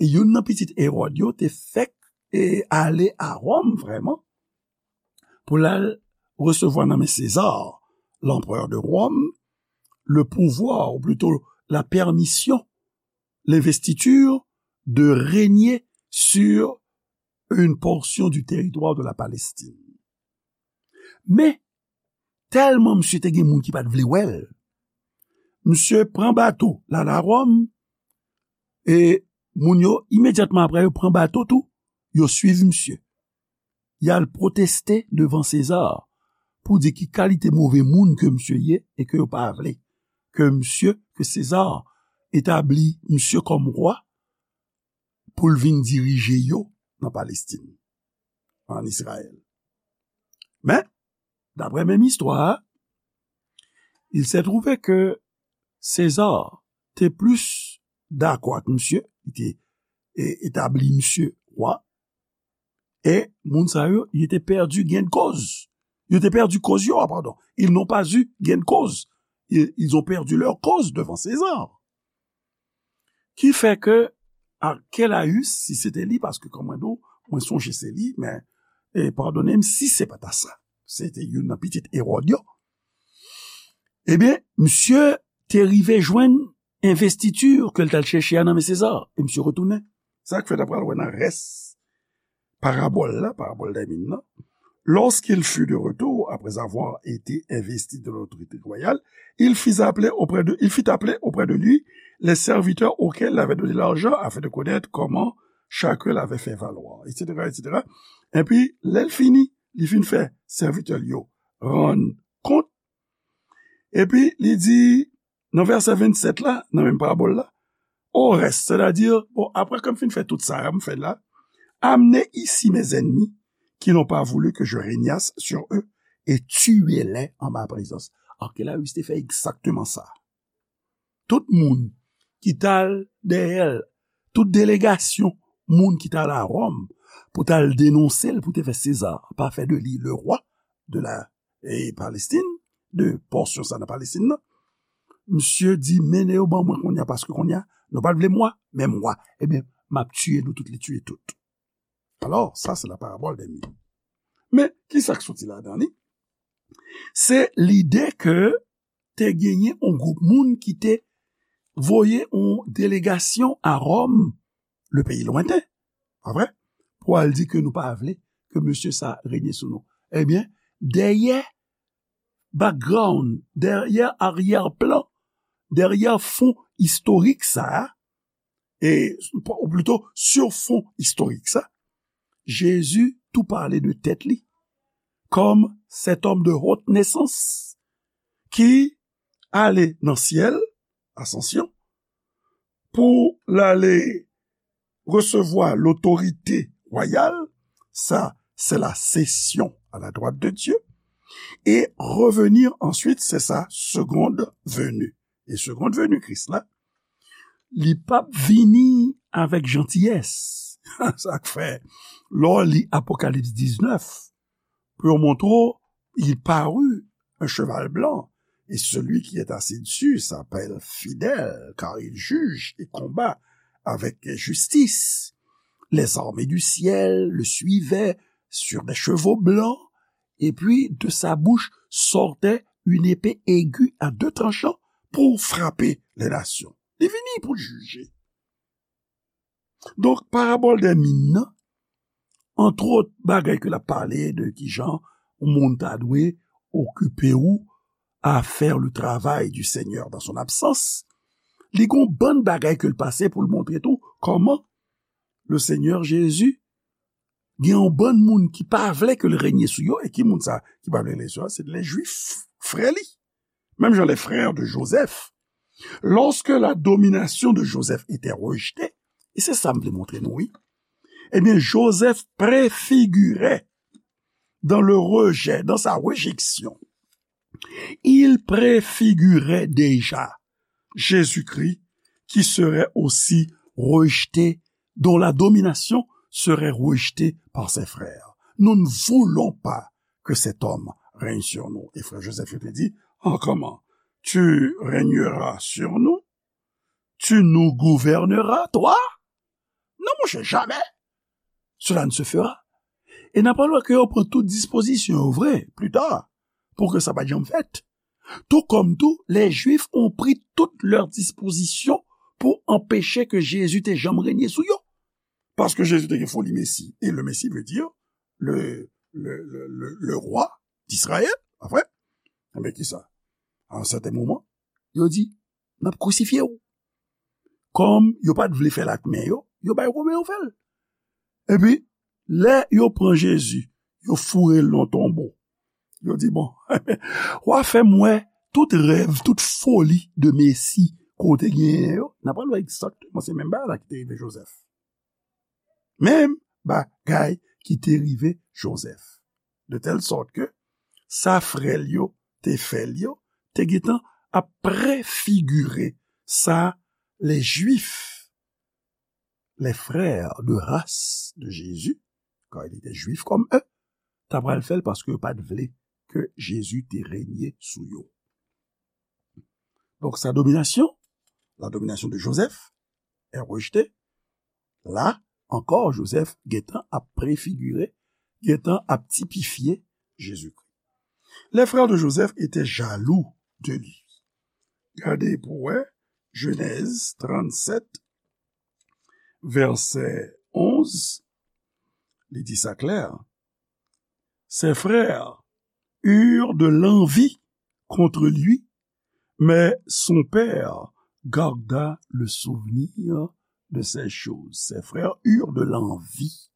e youn nan pitit Ewòd yo te fèk e ale a Wòm vrèman pou l al resevwa nan men Seza, lanperè de Wòm, le pouvoir, ou plito la pèmisyon, l'investiture de régner sur une portion du territoire de la Palestine. Men, tèlman misye te gen moun ki pa t vle wè l, misye pran bato l al a Wòm, e moun yo, imedyatman apre, yo pran bato tou, yo swiv misye. Y al pwoteste devan Seza pou di ki kalite move moun ke misye ye e ke yo pa vle ke misye, ke Seza etabli misye kòm wa pou l vin dirije yo nan Palestin, an Izrayèl. Men, daprè menm istwa a, il se trouve ke Seza te plis dakò ak misye, li te e, etabli misye wa, e moun sa yo, yo te pèdi gain de cause. Yo te pèdi koz yo, ah, pardon. Ils n'ont pas eu gain de cause. Ils, ils ont perdu leur cause devant César. Ki fè ke Arkelayis, si se te li, paske kòm mwen di w, mwen sonje se li, men, e, padone m si se pa ta sa. Se te youn nan pitit Ewòd yo. Ebyen, misye te rive jwenn envestiti ke l t al chèche a nan men Seza, e misye retounen. Sa k fè n ap pral wè nan rès parabòl la, parabòl dè min nan. Lorsqu'il fut de retour, après avoir été investi de l'autorité royale, il fit appeler auprès de, il fit appeler auprès de lui les serviteurs auxquels il avait donné l'argent afin de connaître comment chacun l'avait fait valoir, et cetera, et cetera. Epi, lè l fini, li fin fè sèvitè l yo rann kont. Epi, li di, nan vèsè vennsèt la, nan menm parabòl la, au reste, c'est-à-dire, bon, après que m fin fè tout sa, m fè la, amenez ici mes ennemis qui n'ont pas voulu que je régnasse sur eux et tuez-les en ma présence. Arkelayis te fè egzakteman sa. Tout moun ki t al dèyè l, tout delegasyon moun ki t al a Wòm pou t al denonse l, pou te fè Seza pa fè de li le roi de la e Palestin, de pòsyon sa nan Palestin nan. Misye di, mennen yo ban mwen kounye a, paske kounye a, nou pa t vle m wa, men m wa. Ebyen, m ap tiye nou tout, li tiye tout. Alò, sa se la parabòl dè min. Men, ki sa k soti ladan li? Se lide ke te genyen yon gwoup moun ki te voye yon delegasyon a Wòm, le peyi lwenten, pa vre? Pou al di ke nou pa vle ke mesye sa renye sou nou. Ebyen, dèyè background, dèyè aryè plan, dèyè fon istorik sa a, e, ou plito, sur fon istorik sa, Jezi tou pale de tèt li kòm cet homme de haute naissance ki ale nan syèl, asansyon, pou l ale resevwa lotorite wayal, sa, c'est la session à la droite de Dieu, et revenir ensuite, c'est sa seconde venue. E seconde venue Kris la, li p ap vini avèk jantiyès. Sa k fè, lè w li Apokalips diznèf, pou yo montre w, il parut un cheval blanc, et celui qui est assis dessus s'appelle Fidèle, car il juge et combat avec justice. Les armées du ciel le suivaient sur des chevaux blancs, et puis de sa bouche sortait une épée aiguë à deux tranchants pou frape lè nasyon. Li vini pou l jije. Donk, parabòl dè min nan, antwòt, bagay ke l ap pale de kijan yon moun ta dwe okipe ou à faire le travail du Seigneur dans son absence, li gon bann bagay ke l pase pou l montre tou kòman le Seigneur Jésus gen yon bann moun ki pa vle ke l renye sou yo, e ki moun sa ki pa vle renye sou yo? Se lè Jwif, frè li. Menm jan les frères de Joseph, lorsque la domination de Joseph était rejetée, e se sa m vle montre nou, wi. Ebyen, Joseph préfigurait dans le rejet, dans sa réjection, il préfigurait déjà Jésus-Christ qui serait aussi rejeté, dont la domination serait rejetée par ses frères. Nous ne voulons pas que cet homme règne sur nous. E frè Joseph yo te di, oh, comment? Tu régneras sur nous? Tu nous gouverneras, toi? Non, monchè, jamais. Cela ne se fera. E n ap wè ke yo pran tout dispozisyon yo vre, pli ta, pou ke sa pa t janm fèt. Tout comme tout, les Juifs ont pris toutes leurs dispositions pour empêcher que Jésus te janm renye sou yo. Paske Jezi te gen foli Mesi. E le Mesi vle di le, le, le, le, le roi d'Israël, pa vre? Enben, kisa? A yon sèten moman, yo di, n ap krisifye w. Kòm yo pa t vle fè l ak men yo, yo bay Women yo fè l. Epi, lè yo pran Jezi, yo foure l nan tonbo. Yo di, bon, w a fè m wè tout rèv, tout foli de Mesi ke w te genyen yo. N ap pral wè egzakteman se menm bagay la ki te rive Jozèf. Menm bagay ki te rive Jozèf. De tèl sòt ke sa frè l yo te fè l yo, te gentan ap prefigire sa les Juifs, les frères de race de Jésus, car il était juif comme eux, ta pral fè l paske yo pa t vle ke Jezi te renye sou yo. Donk, sa dominasyon, la domination de Joseph est rejetée. La ankò, Joseph gentan ap prefigire, gentan ap tipifye Jezikri. Les frères de Joseph étaient jaloux de lui. Gade pou wè, Jenèz trannsèt, vèsè onz, li di sa klè. Ses frères eurent de l'envie contre lui, mais son père garda le souvenir de ces choses. Ses frères eurent de l'envie.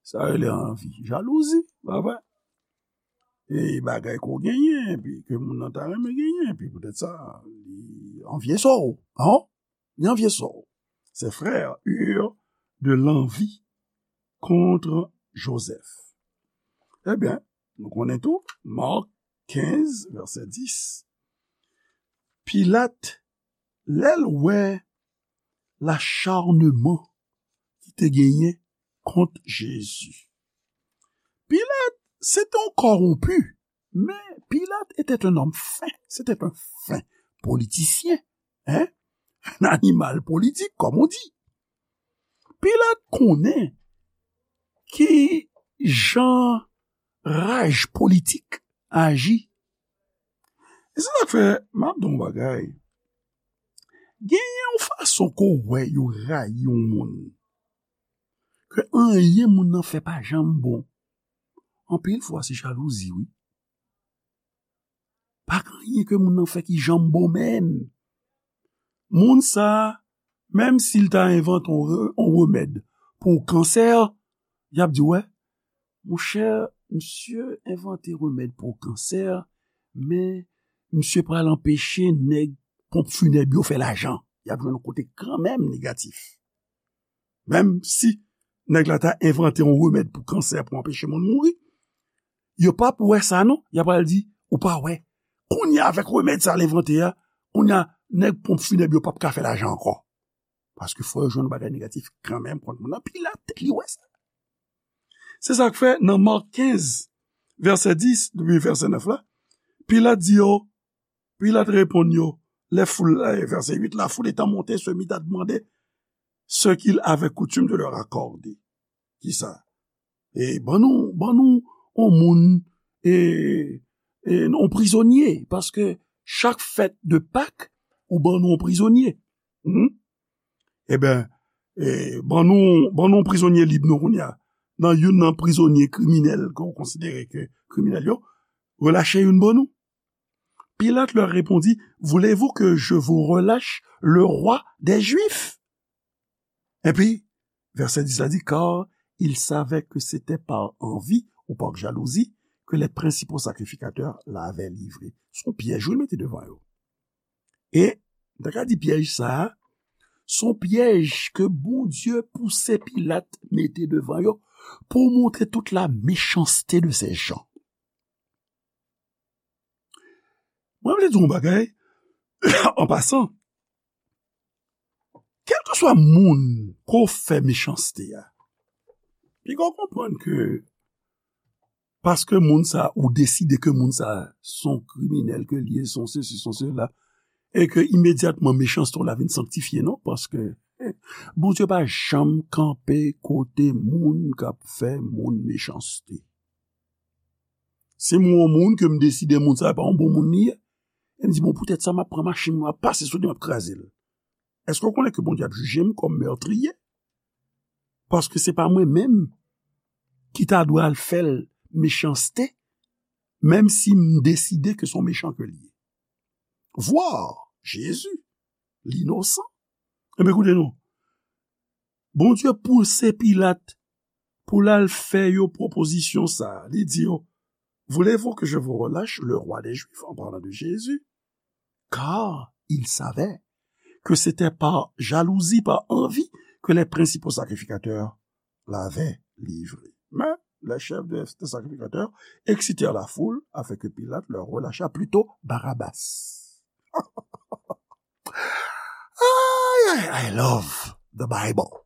Sa rele anvi. Jalouzi, pa vre? E bagay ke w genyen, epi ke moun nan ta renmen genyen, epi poutèt sa, li anvye sa w, an? Li anvye sa w. Ses frères eurent de l'envie contre Joseph. Ebyen, nou konnen tou, Mak kenz, vèsè dis. Pilat, lè l wè lacharnman ki te genyen kont Jezi. Pilat, se te yon kòwonpi, men Pilat était un homme fin, c'était un fin politisyen, hein? Un animal politique, comme on dit. Pilat konnen ki jan raj politik aji. E se sa k fè, m ap di w yon bagay. Genyen yon fason ke w wè yo rayi yon moun, ke anyen moun nan fè pa janm bon. Anpil fwa, se jalouzi, wi. Pa gen anyen ke moun nan fè ki janm bon menm. Moun sa a, menm si l ta envante yon re-, yon remèd pou kansè, y ap di, wè, monchè, misye envante remèd pou kansè, men misye pral anpeche nèg ponp finèb yo fè lajan. Y ap jwenn yon kote kanmenm negatif. Menm si nèg la ta envante yon remèd pou kansè pou anpeche moun mouri, yo p ap wè sa non, y ap pral di, ou pa wè, kounye a avèk remèd sa l envante a, kounye a nèg ponp finèb yo p ap ka fè lajan ankò. Paske fò yo jwenn yon bagay negatif kanmenm kont moun nan, Pilat li wè sa. Se sa k fè nan Mak kenz, vèsè dis, depi vèsè nèf la, Pilat di yo, Pilat reponn yo, les foules, eh, verset huit, la foule étant montée se mit à demander ce qu'il avait coutume de leur accorder. Kisa? E ban nou, ban nou yon moun, e, e yon prizonye, paske Chak fèt de Pak, ou ban nou yon prizonye. Hmm? Ebyen, e, ban nou, ban nou yon prizonye lib nou kounye a. Nan youn nan prizonye kriminèl ke w konsidere ke kriminèl yo, relache youn ban nou. Pilate leur répondit, voulez-vous que je vous relâche le roi des Juifs? Epi, vèsè dis la di, car il savait que c'était par envie ou par jalousie que les principaux sacrificateurs l'avaient livré. Se yon pyèj wi l mete devan yo. E, m ta ka di pyèj sa a, se yon pyèj ke Bondye pouse Pilat mete devan yo pou montre tout la méchanceté de ces gens. Mwen vle di yon bagay, an pasan, kèlkeswa moun ke w fè mechanste a, piga w konprann ke paske moun sa, ou deside ke moun sa se yon kriminèl ke l ye, se yon sesi, se yon sela, e ke imedyatman mechanste w la vin sanktifye, non, paske, eh, Bondye pa janm kanpe kote moun k ap fè moun mechanste. Si m wè yon moun ke m deside moun sa pa yon bon moun li ye, e m di, bon, poutèt sa, m ap pran machin mwen, m ap pase sou li, m ap kraze l. Èske w konnen ke Bondye ap jije m kòm mètriye? Paske se pa mwen menm ki ta dwe al fè l mechanste, menm si m deside ke se yon mechan ke l ye. Voir Jésus, l'innocent. Ebyen, koute non. Bondye pouse Pilat pou l al fè yo pwopozisyon sa a. Li di yo, voulez-vous que je vous relâche le roi des Juifs, en parlant de Jésus? Car il savait que c'était par jalousie, par envie, que les principaux sacrificateurs l'avaient livré. Mais les chefs des, des sacrificateurs excitèrent la foule afin que Pilate leur relâchât plutôt Barabbas. Ay, ay, I love the Bible.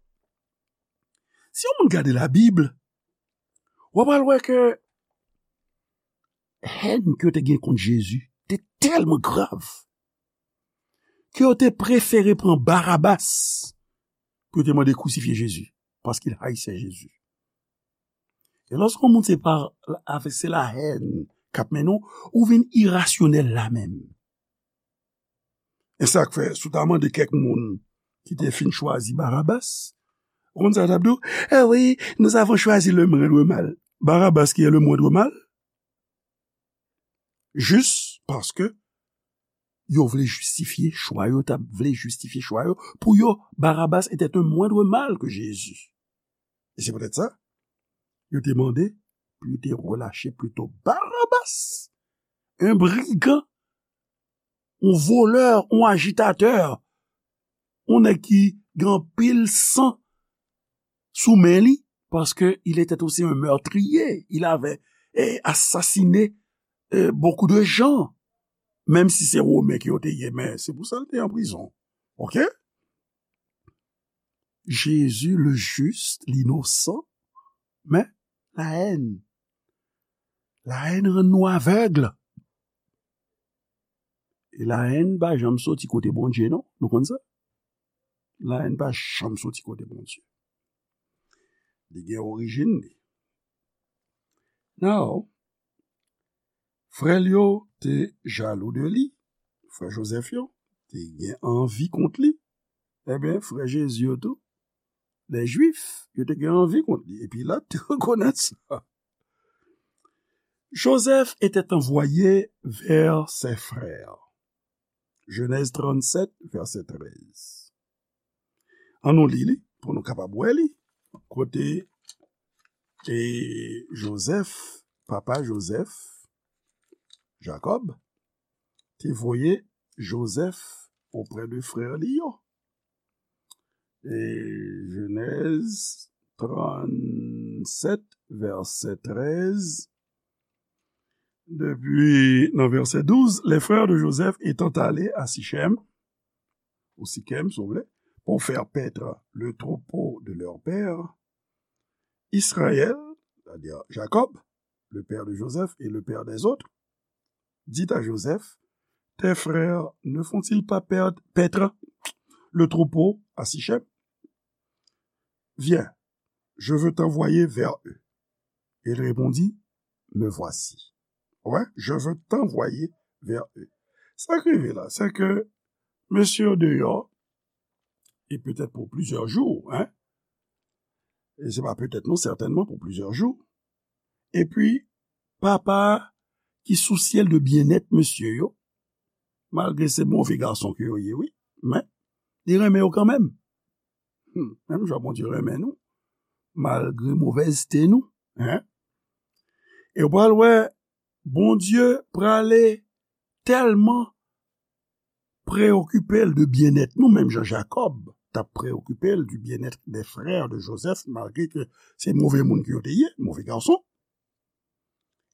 Si yon moun gade Labib, w ap al wè ke hèn ke yo te gen kont Jezi te tèlman grav ke yo te prefere pran Barabas pou yo te mande krisifye Jezi, paske l haïssait Jésus. E lòske yon moun se pa avèk se la hèn k ap mennen w, ou vin irasyonèl la menm. E sa k fè, si w ta mande kèk moun ki te fin chwazi Barabas, ou konn sa yo t ap di w? Eh oui, nous avons choisi le moindre mal. Barabas qui est le moindre mal? Jis paske yo vle jistifye chwa yo, t ap vle jistifye chwa yo. Pou yo, Barabas était un moindre mal que Jésus. E se poutèt sa, yo te mande pou yo te relache plito Barabas, un brigand, un voleur, un agitateur, un nèg ki gen anpil san sou men li, parce que il était aussi un meurtrier, il avait eh, assassiné eh, beaucoup de gens, menm si se Women ke yo te ye, men se pou sa l te an prizon. Ok? Jésus, le juste, l'innocent, men la haine. La haine rann nou avèg. E la haine pa janm soti kote Bondye, non. Nou konn sa? La haine pa janm soti kote Bondye. Li gen orijin li. Now, frè l yo te jalou de li. Frè Jozèf yo te gen anvi kont li. Ebyen, frè Jezi yo tou, les Juifs, yo te gen anvi kont li. E Pilat te rekonèt sa. Joseph était envoyé vers ses frères. Genèse trente-sept, verset treize. An nou li li, pou nou kapab wè li. Kote e Joseph, papa Joseph, Jacob, te voye Joseph oprè de frè li yo. E Genèse trente-sept, verset treize. Depi nan verset douze, les frères de Joseph étant allés à Sichem, ou Sikem, si vous voulez, pour faire paître le troupeau de leur père, Israël, c'est-à-dire Jacob, le père de Joseph et le père des autres, dit à Joseph, tes frères ne font-ils pas perdre, paître le troupeau à Sichem? Viens, je veux t'envoyer vers eux. Et il répondit, me voici. Ouais, je veux t'envoyer vers eux. Sa k rive la, se ke mesye yo deyò, e petèt pou plizyè jou, en, e se pa petèt non, sètènman pou plizyè jou, epi papa ki sou syèl de byennèt mesye yo, malgre se move gason ke yo ye, wi, men li renmen yo kanmenm. Hmm, menm jan Bondye renmen nou, malgre movèzte nou, en. E w pral wè, Bondye prale tèlman preokipe l de byennèt nou, menm jan Jakòb t ap preokipe l du bien-être des frères de Joseph, malgre ke se move moun ke yo te ye, move gason.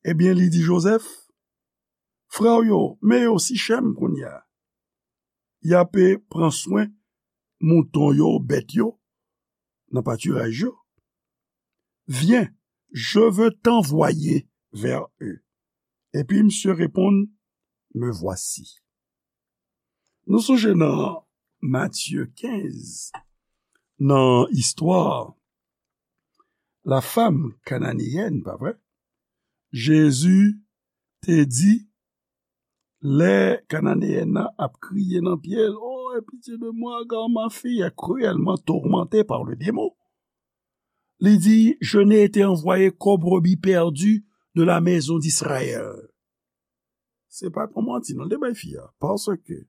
Ebyen, li di Joseph, frè w yo, men yo Sichèm kounye a. Y ape pran swen mouton yo, bèt yo, nan patiraj yo. Viens, je veux t'envoyer vers eux. Epi misye reponn, me voici. Nou sonje nan Matye kenz, nan istwa la femme cananéenne, pa vre? Jezi te di, lè Kananeyèn nan ap kriye nan pye l, oh, aie pitié de moi, car ma fille est cruellement tourmentée par le démon. Li di, je n'ai été envoyé qu'aux brebis perdues de la maison d'Israël. Se pa t yon manti, non, l te bay fi a. Paske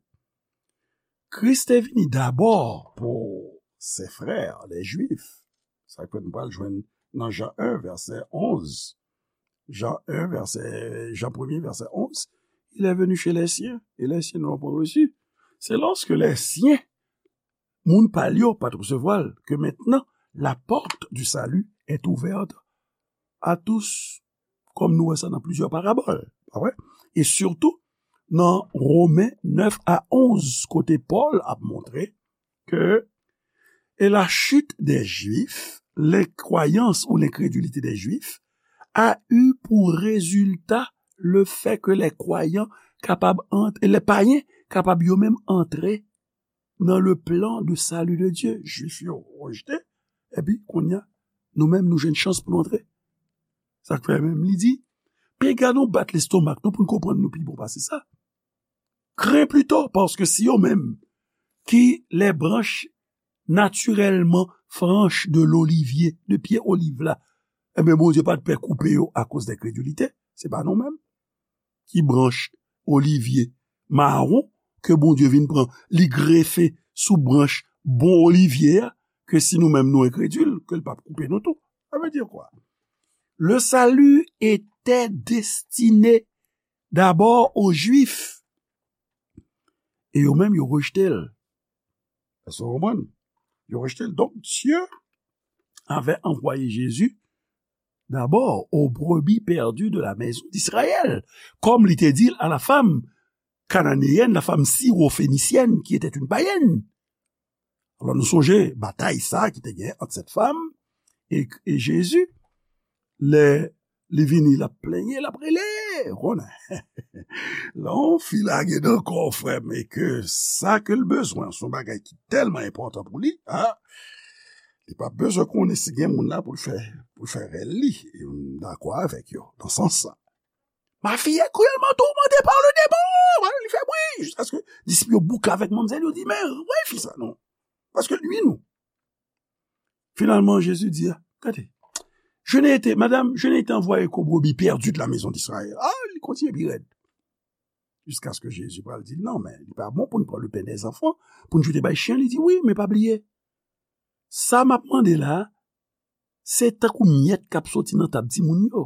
Kris te vini dabò pou ses frères, les Juifs. Sa ke nou pral jwenn nan Jan en, vèsè onz. Jan en, vèsè, Jan premye, vèsè onz. Il est venu chez les siens, et les siens ne l'ont point reçu. C'est lorsque les siens, moun pa l yo, pa t resevwa l, ke mentnan, la porte du salut est ouverte à tous, kòm nou wè sa nan plizyè parabòl, pa vre? E sitou, nan Women nèf a onz, kote Pòl ap montre ke, et la chute des Juifs, l'incroyance ou l'incrédulité des Juifs, a eu pour résultat le fait que les croyants kapab ant-, les païens kapab yo menm antre nan le plan de salut de Dieu. Jwif yo rejte, epi kounye a, nou menm nou jwenn chans pou nou antre. Sa k fè menm li di, pega nou bat lestomak nou pou n konprann nou pi bon pase sa. Crains plutôt, paske si yo menm ki les branches naturellement franches de l'olivier, de pye oliv la, ebyen Bondye pa t pè koupe yo akoz de kredilite, se pa nou menm ki branch olivye mawon ke Bondye vin pran, li grefe sou branch bon olivye a, ke si nou menm nou enkredil, ke l p ap koupe nou tou. Sa vle di kwa? Le salut était destiné d'abord aux Juifs. E yo menm, yo rejte l. Èske w konprann? Yo rejte l. Donc, Dieu avait envoyé Jésus d'abord aux brebis perdues de la maison d'Israël, kòm li te di l a la femme cananéenne, la femme syro-phénicienne, qui était une païenne. Alò, nou sonje batay sa ki te gen ant sèt fanm e, e Jezi, lè li vini, l ap plenyen, l ap rele, ou konnen. Lè yon fi lage nan kò w, frè m, e ke sa ke l bezwen, se yon bagay ki tèlman enpòtan pou li, a, li p ap bezwen konnen si gen moun la pou l fè, pou l fè rèl li. E m dakò avèk yo, nan sans sa. Ma fille est cruellement tourmentée par le démon. Voilà, li fè bri, jiskaske disip yo bouke avèk manmzèl, yo di, men, wè fi sa, non. Paske l nwi nou. Finalman, Jezi di, gade, je n'ai été, madame, je n'ai été envoyé qu'aux brebis perdues de la maison d'Israël. A, li kontinye pi rèd. Jiskaske Jezi pral di, non, men li pa bon pou n pran le pain des enfants, pou n jete bay chen. Li di, wi, men pa bliye, sa m ap mande la, se tankou myèt k ap soti nan tab timoun yo.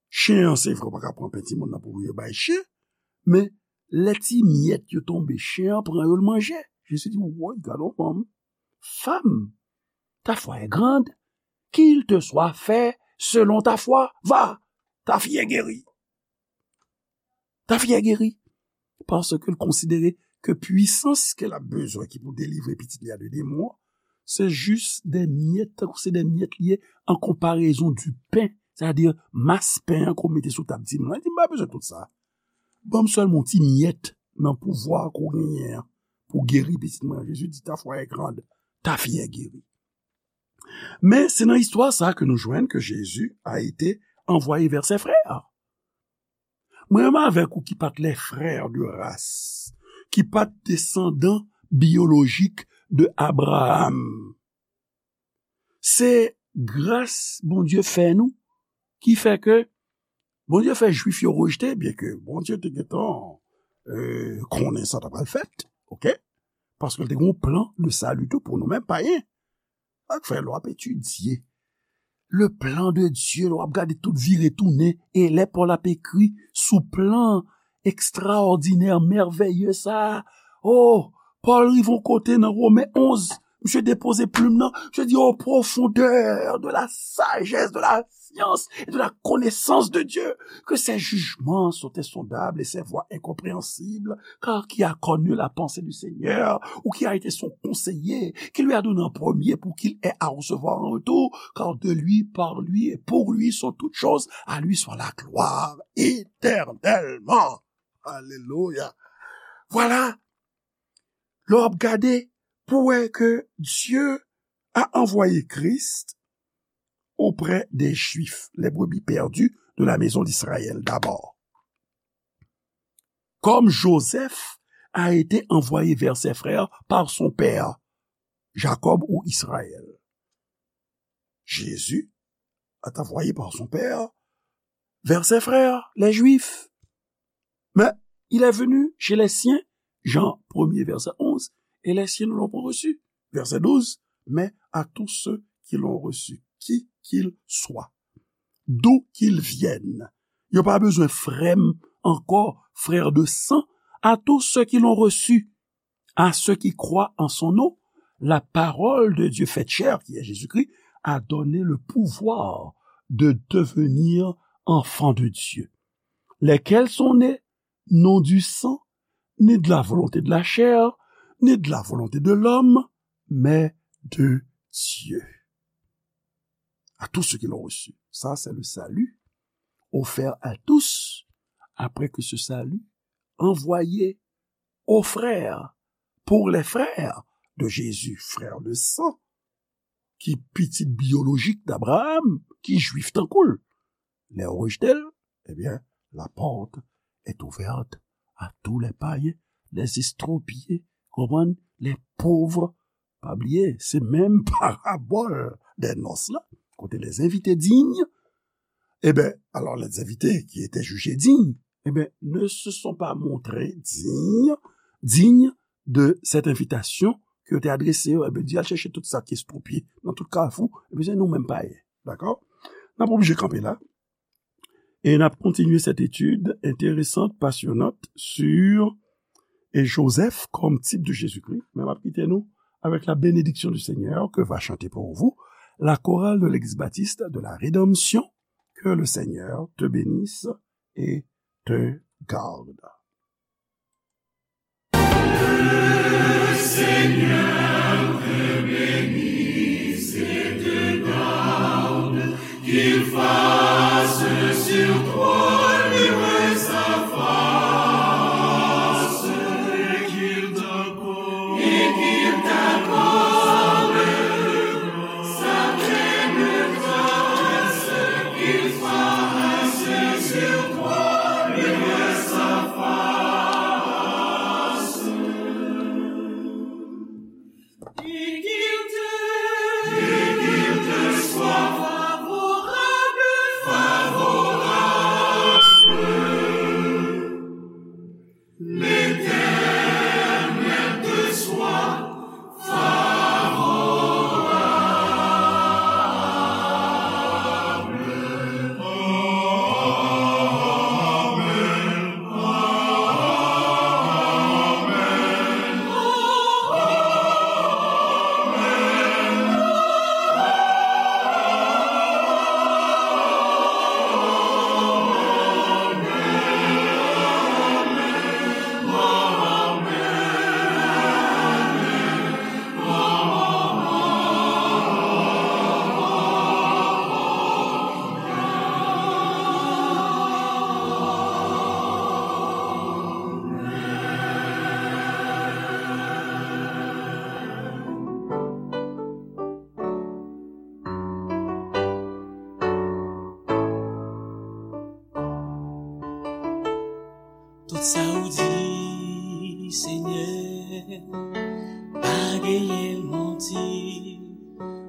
Chen an, se vre, w pa ka pran pen timoun nan pou yo bay chen, men lè ti myèt yo tonbe, chen an pran yo, l manje. Jezi di, woy, gade yon fanm. Femme, ta foi est grande, qu'il te soit fait selon ta foi. Va, ta fille est guérie. Ta fille est guérie. Paske l konsidere ke pwisans ke l ap bezwen ki pou delivre pitit li a de demon an, se jis de myèt, tankou se de myèt li ye, an konparezon du pain, sètadi mas pen an ke w mete sou tab timoun nan. Li di, m pa bezwen tout sa. Ban m sèlman yon ti myèt nan pouvwa ke w genyen an pou geri pitit mwen an. Jezi di, ta foi est grande, ta fille est guérie. Men se nan istwa sa ke nou jwenn ke Jezi a été envoyé vers ses frères. Mwen menm avèk ou ki pa t les frères de race, ki pa t desandan biyolojik de Abraham. Se gras Bondye fè nou ki fè ke Bondye fè Jwif yo rejte, byenke Bondye te gentan, euh, konnen sa t ap pral fèt, oke? Paske l te gen yon plan de sali tou pou nou menm payen. Sa k fè lè w ap etidye le plan de Dieu, lè w ap gade tout vire tounen, e lè Pòl ap ekri sou plan ekstraòdinè, mèvèye sa a, oh, Pòl rive yon kote nan Women onz, misye depoze plim nan, misye di, aux profondeurs de la sagesse, de la science et de la connaissance de Dieu, que ses jugements sont insondables et ses voies incompréhensibles, car qui a connu la pensée du Seigneur, ou qui a été son conseiller, qui lui a donné en premier pour qu'il ait à recevoir en retour, car de lui, par lui et pour lui sont toutes choses, à lui soit la gloire éternellement. Alléluia. Voilà. Lè w ap gade, pou wè ke Dieu a envoyé Christ auprès des Juifs, les brebis perdues de la maison d'Israël d'abord. Comme Joseph a été envoyé vers ses frères par son père, Jacob ou Israël. Jésus est envoyé par son père vers ses frères, les Juifs. Mais il est venu chez les siens, Jean premier, verset onze, et les siens ne l'ont pas reçu. Verset douze, mais à tous ceux qui l'ont reçu, qui qu'ils soient, d'où qu'ils viennent. Yo pa bezwen frè m ankò, frère de sang, à tous ceux qui l'ont reçu, à ceux qui croient en son nom, la parole de Dieu faite chair, qui est Jésus-Christ, a donné le pouvoir de devenir enfants de Dieu, lesquels sont nés non du sang, ni de la volonté de la chair, ni de la volonté de l'homme, mais de Dieu. À tous ceux qui l'ont reçu. Ça, c'est le salut offert à tous, après que ce salut envoyé aux frères, pour les frères de Jésus, frères de sang, ki pitit biyolojik d'Abraham, ki jwif tankou l. Lè yo rejte l, ebyen, la porte est ouverte à tous les païens, les estropiés, konprann, les pauvres. Pa bliye, se menm parabòl des noces la, kote les invités dignes, eh ben, alors les invités qui étaient jugés dignes, eh ben, ne se sont pas montrés dignes, dignes de cette invitation ke yo te adrese yo. Eh ben, di al chèche tout sa ki estwopye nan tout kafou, eh ben, se nou menm payen. Dakò? N ap oblije kanpe la. E n ap kontinye cette étude intéressante, passionnante sur et Joseph comme type de Jésus-Christ. Men m ap kite nou avec la bénédiction du Seigneur que va chanter pour vous la chorale de l'église baptiste de la Rédemption. Que le Seigneur te bénisse et te garde. Le Seigneur te bénisse et te garde, qu'il fasse sur toi luire sa face, et qu'il t'accorde, et qu'il t'accorde sa pleine grâce, qu'il fasse sur toi luire sa face. Sa w di, Senyè, pa genyen manti.